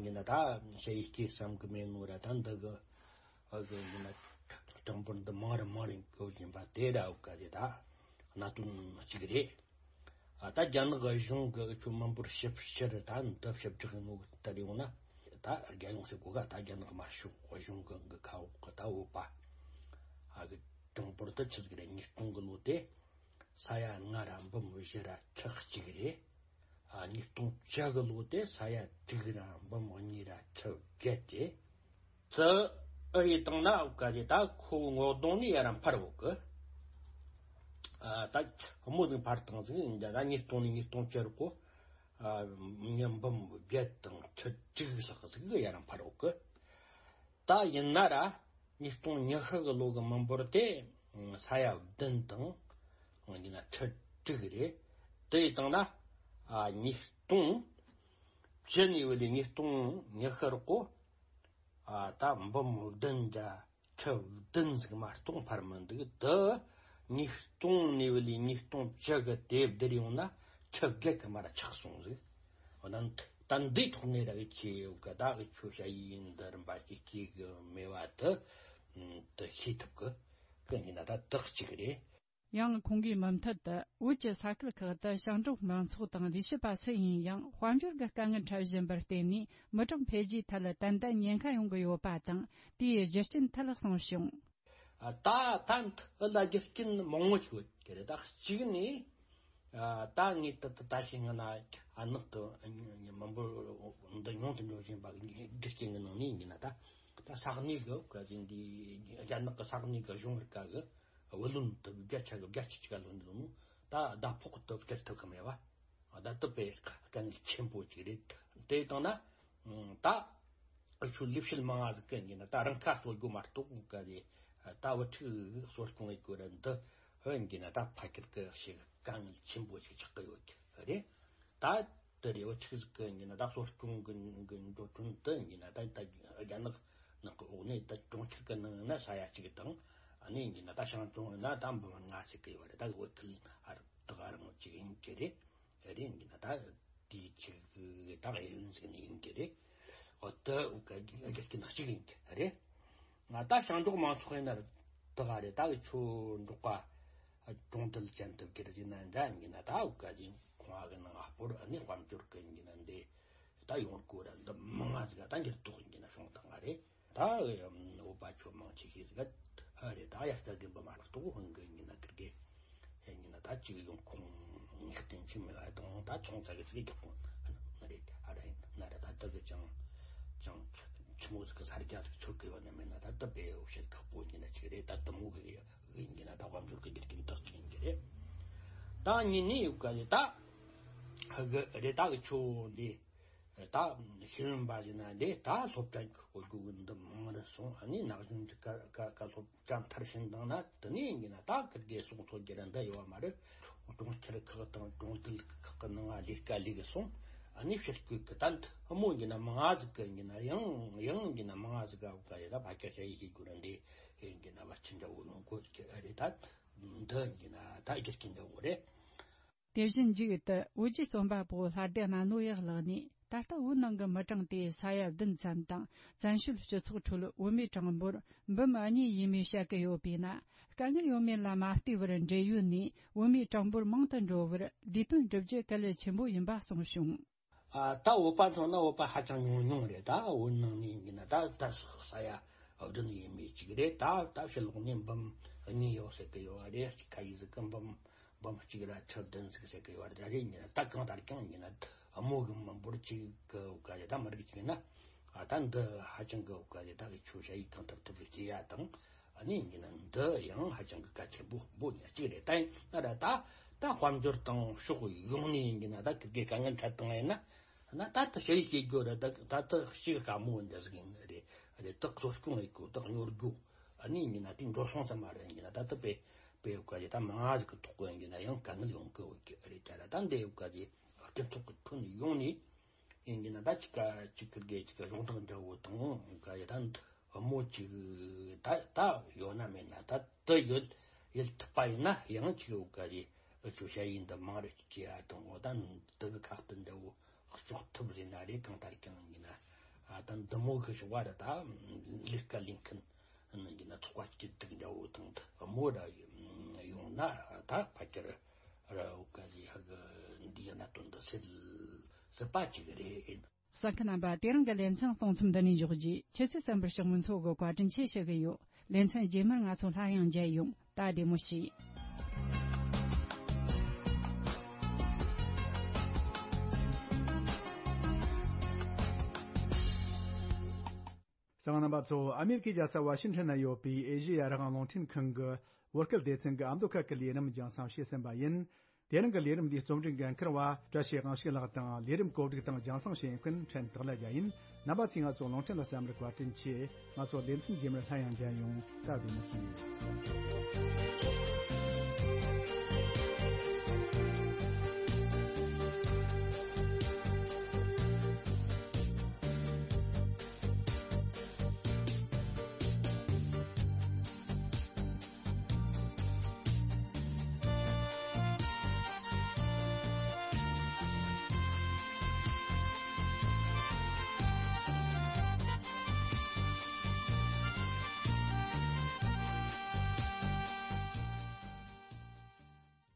ཡིན་ན་ད་ཞ་ཡིས་སྐྱེས་བསམ་གི་མེད་ནོ་ར། ད་འདི་གི་ཨ་གི་ཡིན་ན་གྲངས་འབོར་འདི་མང་རུ་མང་རུ་འགྲོ་བཞིན་པ་དེ་ར་འོ་ག་རེད། ད་གནད་དོན་གཅིག་རེད། ཨ་ད་རྒྱ་ནག་གཞུང་གི་ཁྱོད་མི་འབོར་ཞིབ་བཤེར་ད་འདི་ཞིབ་བསྒྲགས་ཡིན་ནོ་ལྟར་ཡོང་ན། ད་རྒྱ་ཡོངས་སུ་གོ་ག་ད་རྒྱ་ནག་དམར་ཤོག་གཞུང་གི་གི་ཁ་འོག་གི་ད་བོད་པ་ཨ་གི་གྲངས་འབོར་དུ་ཆི་ཟིག་རེད། ཉིས་སྟོང་གི་ལོ་དེ་ས་ཡ་ལྔ་ར་འབུམ་བཞི་ར་ཁྲི་གཅིག་རེད། ཨ་ཉིས་སྟོང་བཅུ་གི་ལོ་དེ་ས་ཡ་དྲུག་ར་འབུམ་གཉིས་ར་ཁྲི་བརྒྱད་དེ། ཙི་ཨ་རེ་བཏང་ན་འོ་ག་དེ་ད་ཁོ་ངོ་གདོང་ནས་ཡ་ར་འཕར་འོ་གི། ཨ་ད་མོ་ཟིག་འཕར་བཏང་ཟིག་ཡིན་ད་ཉིས་སྟོང་ནས་ཉིས་སྟོང་བཅུ་རུ་གོ། ཨ་ཉིས་འབུམ་བརྒྱད་དང་ཁྲི་དྲུག་ལྷག་ཟིག་ཡ་ར་འཕར་འོ་གི། ད་ཡིན་ན་ར་ཉིས་སྟོང་ཉི་ཤུ་གི་ལོ་གི་མི་འབོར་དེ་ས་ཡ་བདུན་དང་ཡིན་ན་ཁྲི་དྲུག་རེད། དེ་ཡི་སྟེང་ན་ཨ་ཉིས་སྟོང་བཅུ་ནས་བུད་ལས་ཉིས་སྟོང་ཉི་ཤུ་རུ་གོ། ཨ་ད་འབུམ་བདུན་བརྒྱ་ཁྲི་བདུན་ཟིག་མ་གཏོགས་འཕར་མི་འདུག། དུ་ཉིས་སྟོང་ནས་བུད་ལས་ཉིས་སྟོང་བཅུ་གི་དེབ་བསྡུར་ཡོང་ན་ཁྲི་བརྒྱད་གི་མར་ཆག་སོང་ཟིག། ད་ད་འདིའི་ཐོག་ནས་ར་གི་ཆེ་ཡོད་གི། ད་གི་ཆོས་བྱ་ཡིན་འདི་རིམ་པ་ཅིག་སྐྱེ་གི་མེད་པ་དེ་དེ་ཤེས་ཐུབ་གི། གི་ཡིན་ན་ད་དག་ཅིག་རེད། ཡང་ཁོང་གིས་མུ་མཐུད་དུ། བོད་ཀྱི་ས་ཁུལ་ཁག་ཏུ་ཞིང་འབྲོག་མང་ཚོགས་དང་ལས་བྱེད་པ་སུ་ཡིན་ཡང་དཔལ་འབྱོར་གྱི་དཀའ་ངལ་འཕྲད་བཞིན་པར་བརྟེན་ནས། མི་གྲངས་འཕེལ་རྒྱས་ཐད་ཏན་ཏན་ཉེན་ཁ་ཡོང་གི་ཡོད་པ་དང་། དེའི་རྒྱུ་རྐྱེན་ཐད་གསུངས་བྱུང་། ཨ། ད་ད་འདི་ལ་རྒྱུ་རྐྱེན་མང་པོ་ཞིག་ཡོད་ཀྱི་རེད། ད་གཅིག་ནས། ཨ། ད་ངས་ད་ད་ད་ཞིག་ང་ན་ཨ་ནག་གི་མི་འབོར་འདི་ཉུང་དུ་འགྲོ་བཞིན་པ་རྒྱུ་རྐྱེན་གྱི་ནང་ནས་ཡིན་ན། ད་ད་ས་གནས་གི་ག་ཅིག་འདི་རྒྱ་ནག་གི་ས་གནས་གི་གཞུང་རིག་ག་གི་བུ་ལོན་དུ་བརྒྱ་ཆ་གི་བརྒྱད་ཅུ་གཅིག་ག་ལོན་འདུག་ནོ། ད་ཟླ་ཕོགས་དུ་སྤྲད་ཐུབ་གི་མེད་པ། ད་དུ་པའི་དཀའ་ངལ་ཆེན་པོ་ཅིག་རེད། དེ་དང་ན་ད་ཨ་ཆུ་ལས་བྱེད་མང་ང་ཟིག་གི་ཡིན་ན། ད་རང་ཁ་གསོ་རྒྱུ་མ་གཏོགས་ག་རེ། ད་བུ་ཕྲུག་གསོ་སྐྱོང་ཡེད་དགོས་ར་འདི་ཧོན་གྱི་ན་ད་ཕ་ཁྱེར་གི་ཞིག་དཀའ་ངལ་ཆེན་པོ་ཞིག་ཆགས་གི་ཡོད་གི་རེད། ད་དེ་རེ་བུ་ཕྲུག་ཟིག་གི་ཡིན་ན་ད་གསོ་སྐྱོང་གི་གི་འགྲོ་གྲོན་དུ་ཡིན་ན། ད་ད་རྒྱ་ནག་ནག་གི་འོག་ནས་ད་གྲོང་ཁྱེར་གི་ནང་ན་ས་ཡ་གཅིག་དང་། ཨ་ནི་ཡིན་ན་ད་ཞང་ཀྲུང་ན་ད་འབུམ་ལྔ་ཟིག་གི་ཡོད་རེད། ད་བོད་ཁུལ་ཨ་རི་དག་རང་ཅིག་ཡིན་གི་རེད། རེད་ཡིན་ན་ད་དེའི་ཆེད་དུ་ད་གཡས་གཡོན་ཟིག་ནས་ཡིན་གི་རེད། འོ་ད་འུ་ག་རྒྱུ་རྐྱེན་གཅིག་ཡིན་གི་རེད། ང་ད་ཞིང་འབྲོག་མང་ཚོགས་ཡིན་ན་ད་ག་རེད། ད་གི་ཆོས་འབྲོག་པ་གྲོང་རྡལ་ཅན་དུ་གྱུར་ཟིན་ན་འདྲ་ཡིན་ན། ད་འུ་ག་ཅིག་ཁོང་གི་ནང་ཨ་སྤོར་ཨ་ནི་དཔལ་འབྱོར་གི་ཡིན་ན་འདི་ད་ཡོང་སྒོ་ར་འདི་མང་ང་ཟིག་ད་འགྱུར་ལྡོག་ཡིན་ན་བྱུང་བཏང་ང་རེད། ད་བོད་པ་ཆོས་མང་ཆེ་ཤོས་ཟིག་ཨ་རེད། ད་དབྱར་རྩྭ་དགུན་འབུ་མ་གཏོགས་ཧོན་གི་ཡིན་ན་ཁིར་གི་ཡིན་ན་ད་ཅིག་ཡོང་ཁུངས་ངེས་གཏན་ཅིག་མེད་པ་དང་། ད་ཆུང་ཙག་གི་ཅིག་རྒྱག་ཁུངས་ན་རེད། ཨ་ར་ཡིན་ན་ར་ད་ད་གི་ཅང་ཅང་ཆི་མོ་ཟིག་གི་ས་རྒྱ་ཟིག་ཆོད་གི་ཡོད་ན་མེད་ན། ད་ད་བོད་བཤད་ཁག་པོ་ཡིན་ན་ཅིག་རེད། ད་དུ་མོ་གི་ཡིན་གྱི་ན་ད་དཔལ་འབྱོར་གྱི་རྒྱུ་རྐྱེན་དག་ཅིག་ཡིན་གྱི་རེད། ད་གཉིས་ནས་ཡོད་ག་ལེ་ད་ཧ་གི་རེད། ད་གི་ཆོ་འདི་ད་ཤེས་ཡོན་པ་ཟིན་ན་འདི་ད་སློབ་གྲྭ་གི་སྒོ་སྒོ་གི་འདི་མང་རུ་སོང་། ཨ་ནི་ན་གཞོན་གྱི་ཀ་ཀ་ཀ་སློབ་གྲྭ་མཐར་ཕྱིན་བཏང་ན། དེ་ནས་ཡིན་གྱི་ན་ད་ཁིར་གི་གསུང་ཚོད་ཀྱི་ར་འདི་ཡོད་མ་རེད། གྲོང་ཁྱེར་ཁག་དང་གྲོང་རྡལ་ཁག་གི་ནང་ལས་ཀ་ལས་གི་སོང་། ཨ་ནི་ཕྱིར་སྐུལ་གི་ད་འདི་མོ་ཡིན་གྱི་ན་མང་ང་ཟིག་གི་ཡིན་གྱི་ན་ཡང་ཡང་ཡིན་གྱི་ན་མང་ང་ཟིག་ག་ག་ཡ་ད་ཕ་ཁྱ་ཁྱ་ཡི་གི་གུ་ར་འདི། ཡིན་གྱི་ན་བར་ཆད་འདྲ་བོ་ཡོང་གོ་གི་རེད། ད་འདི་ཡིན་གྱི་ན་ད་རྒྱུ་རྐྱེན་འདྲ་བོ་རེད། དེ་བཞིན་མཇུག་ཏུ་བོད་ཀྱི་རྩོམ་པ་པོ་ལྷ་སྡེ་གནའ་ནོ་ཡག་ལགས་ནས། ད་ལྟ་བོད་ནང་གི་མི་གྲངས་དེ་ས་ཡ་བདུན་ཙམ་དང་། བཙན་བྱོལ་སྤྱི་ཚོགས་ཁྲོད་བོད་མིའི་གྲངས་འབོར་འབུམ་གཉིས་ཡས་མས་བཤད་ཀྱི་ཡོད་པས་ན། དཀའ་ངལ་ཡོད་མེད་ལ་མ་ལྟོས་པར་འབྲེལ་ཡོད་ནས་བོད་མིའི་གྲངས་འབོར་མང་དུ་འགྲོ་བར་ལས་དོན་བསྒྲུབ་རྒྱུ་གལ་ཆེན་པོ་ཡིན་པ་གསུངས་བྱུང་། ཨ། ད་བོད་པ་མཚོན་ན་བོད་པ་ཧ་ཅང་ཉུང་ཉུང་རེད། ད་བོད་ནང་ནས་ཡིན་ན་ད་ད་ས་ཡ་བདུན་ཡས་མས་གཅིག་རེད། ད་ད་ཕྱི་ལོགས་ནས་འབུམ་གཉིས་ཡོད་ཟེར་གི་ཡོད་རེད། ཁ་ཡི་ཟིག་གི་འབུམ་འབུམ་གཅིག་ར་ཁྲི་བདུན་ཟིག་ཟེར་གི་ཡོད་རེད། ད་རེད་ཡིན་ན་ད་གང་ལྟར་ཀྱང་ཡིན་ན་དམོ་གི་མི་འབོར་གཅིག་གི་འོག་ག་རེད། ད་མི་རིགས་གཅིག་ཡིན་ན། ཨ། ད་འདི་ཧ་ཅང་གི་འོག་ག་རེད། ད་གི་ཆོས་བྱ་ཡིག་གང་ཐུབ་ཐུབ་ཀྱི་བྱེད་ཡ་དང་། ཨ་ནི་ཡིན་ན་འདི་ཡང་ཧ་ཅང་གི་གལ་ཆེན་པོ་པོ་ཉག་གཅིག་རེད། ད་ཡིན་ན་ར་ད་ད་དཔལ་འབྱོར་དང་ཕྱོགས་ཡོངས་ནས་ཡིན་ན་ད་ཁིར་གི་དཀའ་ངལ་འཕྲད་བཏང་ཡིན་ན། ན་ད་ད་ཞི་བའི་སྐྱེ་རྒྱུ་ར་ད་ད་ད་ཞི་བའི་དཀའ་མོ་འདི་ཟིག་ཡིན་རེད། རེད། ད་གསོ་སྐྱོང་ཡེད་དགོས། ད་གཉོར་རྒྱུ། ཨ་ནི་ཡིན་ན་དེ་འགྲོ་སོང་ཙམ་མ་རེད། ཡིན་ན་ད་ད་དཔེ་དཔེ་ཡོད་ག་ཅིག་ད་མང་ང་ཟིག་གི་ཐོག་གི་ཡིན་ན་ཡང་དཀའ་ངལ་ཡོང་གི་ཡོད་ཀྱི་རེད། ད་ར་ད་འདི་ཡོད་ག་ཅིག་སྤྱི་ཚོགས་ཀྱི་ཁྲོད་ནས་ཡོང་ནས། ཡིན་གྱི་ན་ད་ཅིག་ག་ཅིག་ཁིར་གི་ཅིག་ག་གཞོགས་འདེགས་འདྲ་བོ་དང་ག་ཡི་ད་མོ་ཅིག་ད་ད་ཡོད་ན་མེད་ན་ད་དུ་ཡོད་ཡིད་ཐུབ་པ་ཡིན་ན་ཡང་ཅིག་ཡོད་ག་རེད། ཨུ་ཆོ་ཞ་ཡིས་འདི་མང་རུ་སྐྱེ་ཡ་དང་། འོ་ད་དུ་གི་ཁ་གཏད་འདྲ་བོ་གཅོག་ཐུབ་རེད་ན་རེད། གང་ལྟར་ཀྱང་ཡིན་ན་ཨ་ད་འདི་མོ་གི་ཞོགས་པ་ར་ད་ལས་ཀ་ལས་མཁན་ནི་ཡིན་ན་ཚོགས་པ་སྐྱིད་སྡུག་འདྲ་བོ་དང་མོ་ར་ཡོང་ན་ད་ཕལ་ཆེར་ར་འོ་ག་ལི་ཧ་གི་འདིའི་གནད་དོན་འདི་སེལ་སྲིད་པ་ཅིག་རེད། གསན་མཁན་རྣམ་པ། དེ་རིང་གི་ལེ་ཚན་གཏོང་མཚམས་འདི་ནས་འཇོག་རྒྱུ། ཁྱེད་ཚོས་གསན་པར་ཕྱོགས་མི་ཚོ་གི་བཀའ་དྲིན་ཆེ་ཞུ་གི་ཡོད། ལེ་ཚན་རྗེས་མར་ང་ཚོ་སླར་ཡང་མཇལ་ཡོང་། ད་བདེ་མོ་བྱོས། གསན་མཁན་རྣམ་པ་ཚོ། ཨ་མེ་རི་ཁའི་རྒྱལ་ས་ཝ་ཤིང་ཊོན་ན་ཡོད་པའི་ཨེ་ཤེ་ཡ་རང་དབང་རླུང་འཕྲིན་ཁང་གི་བོད་སྐད་སྡེ་ཚན་གྱི་ཨ་མདོ་ཁུལ་གྱི་ལས་རིམ་རྒྱང་སྲིང་བྱས་ཟིན་པ་ཡིན། དེ་རིང་གི་ལས་རིམ་འདིའི་རྩོམ་སྒྲིག་འགན་འཁུར་བ་བཀྲ་ཤིས་དབང་ཕྱུག་ལགས་དང་། ལས་རིམ་གོ་སྒྲིག་དང་རྒྱང་སྲིང་བྱེད་མཁན་ཕྲན་དག་ལ་རྒྱལ་ཡིན། རྣམ་པ་ཚོས་ང་ཚོ་རླུང་འཕྲིན་ལ་གསན་པར་བཀའ་དྲིན་ཆེ། ང་ཚོ་ལེ་ཚན་རྗེས་མར་སླར་ཡང་མཇལ་ཡོང་། ད་བདེ་མོ་བྱོས།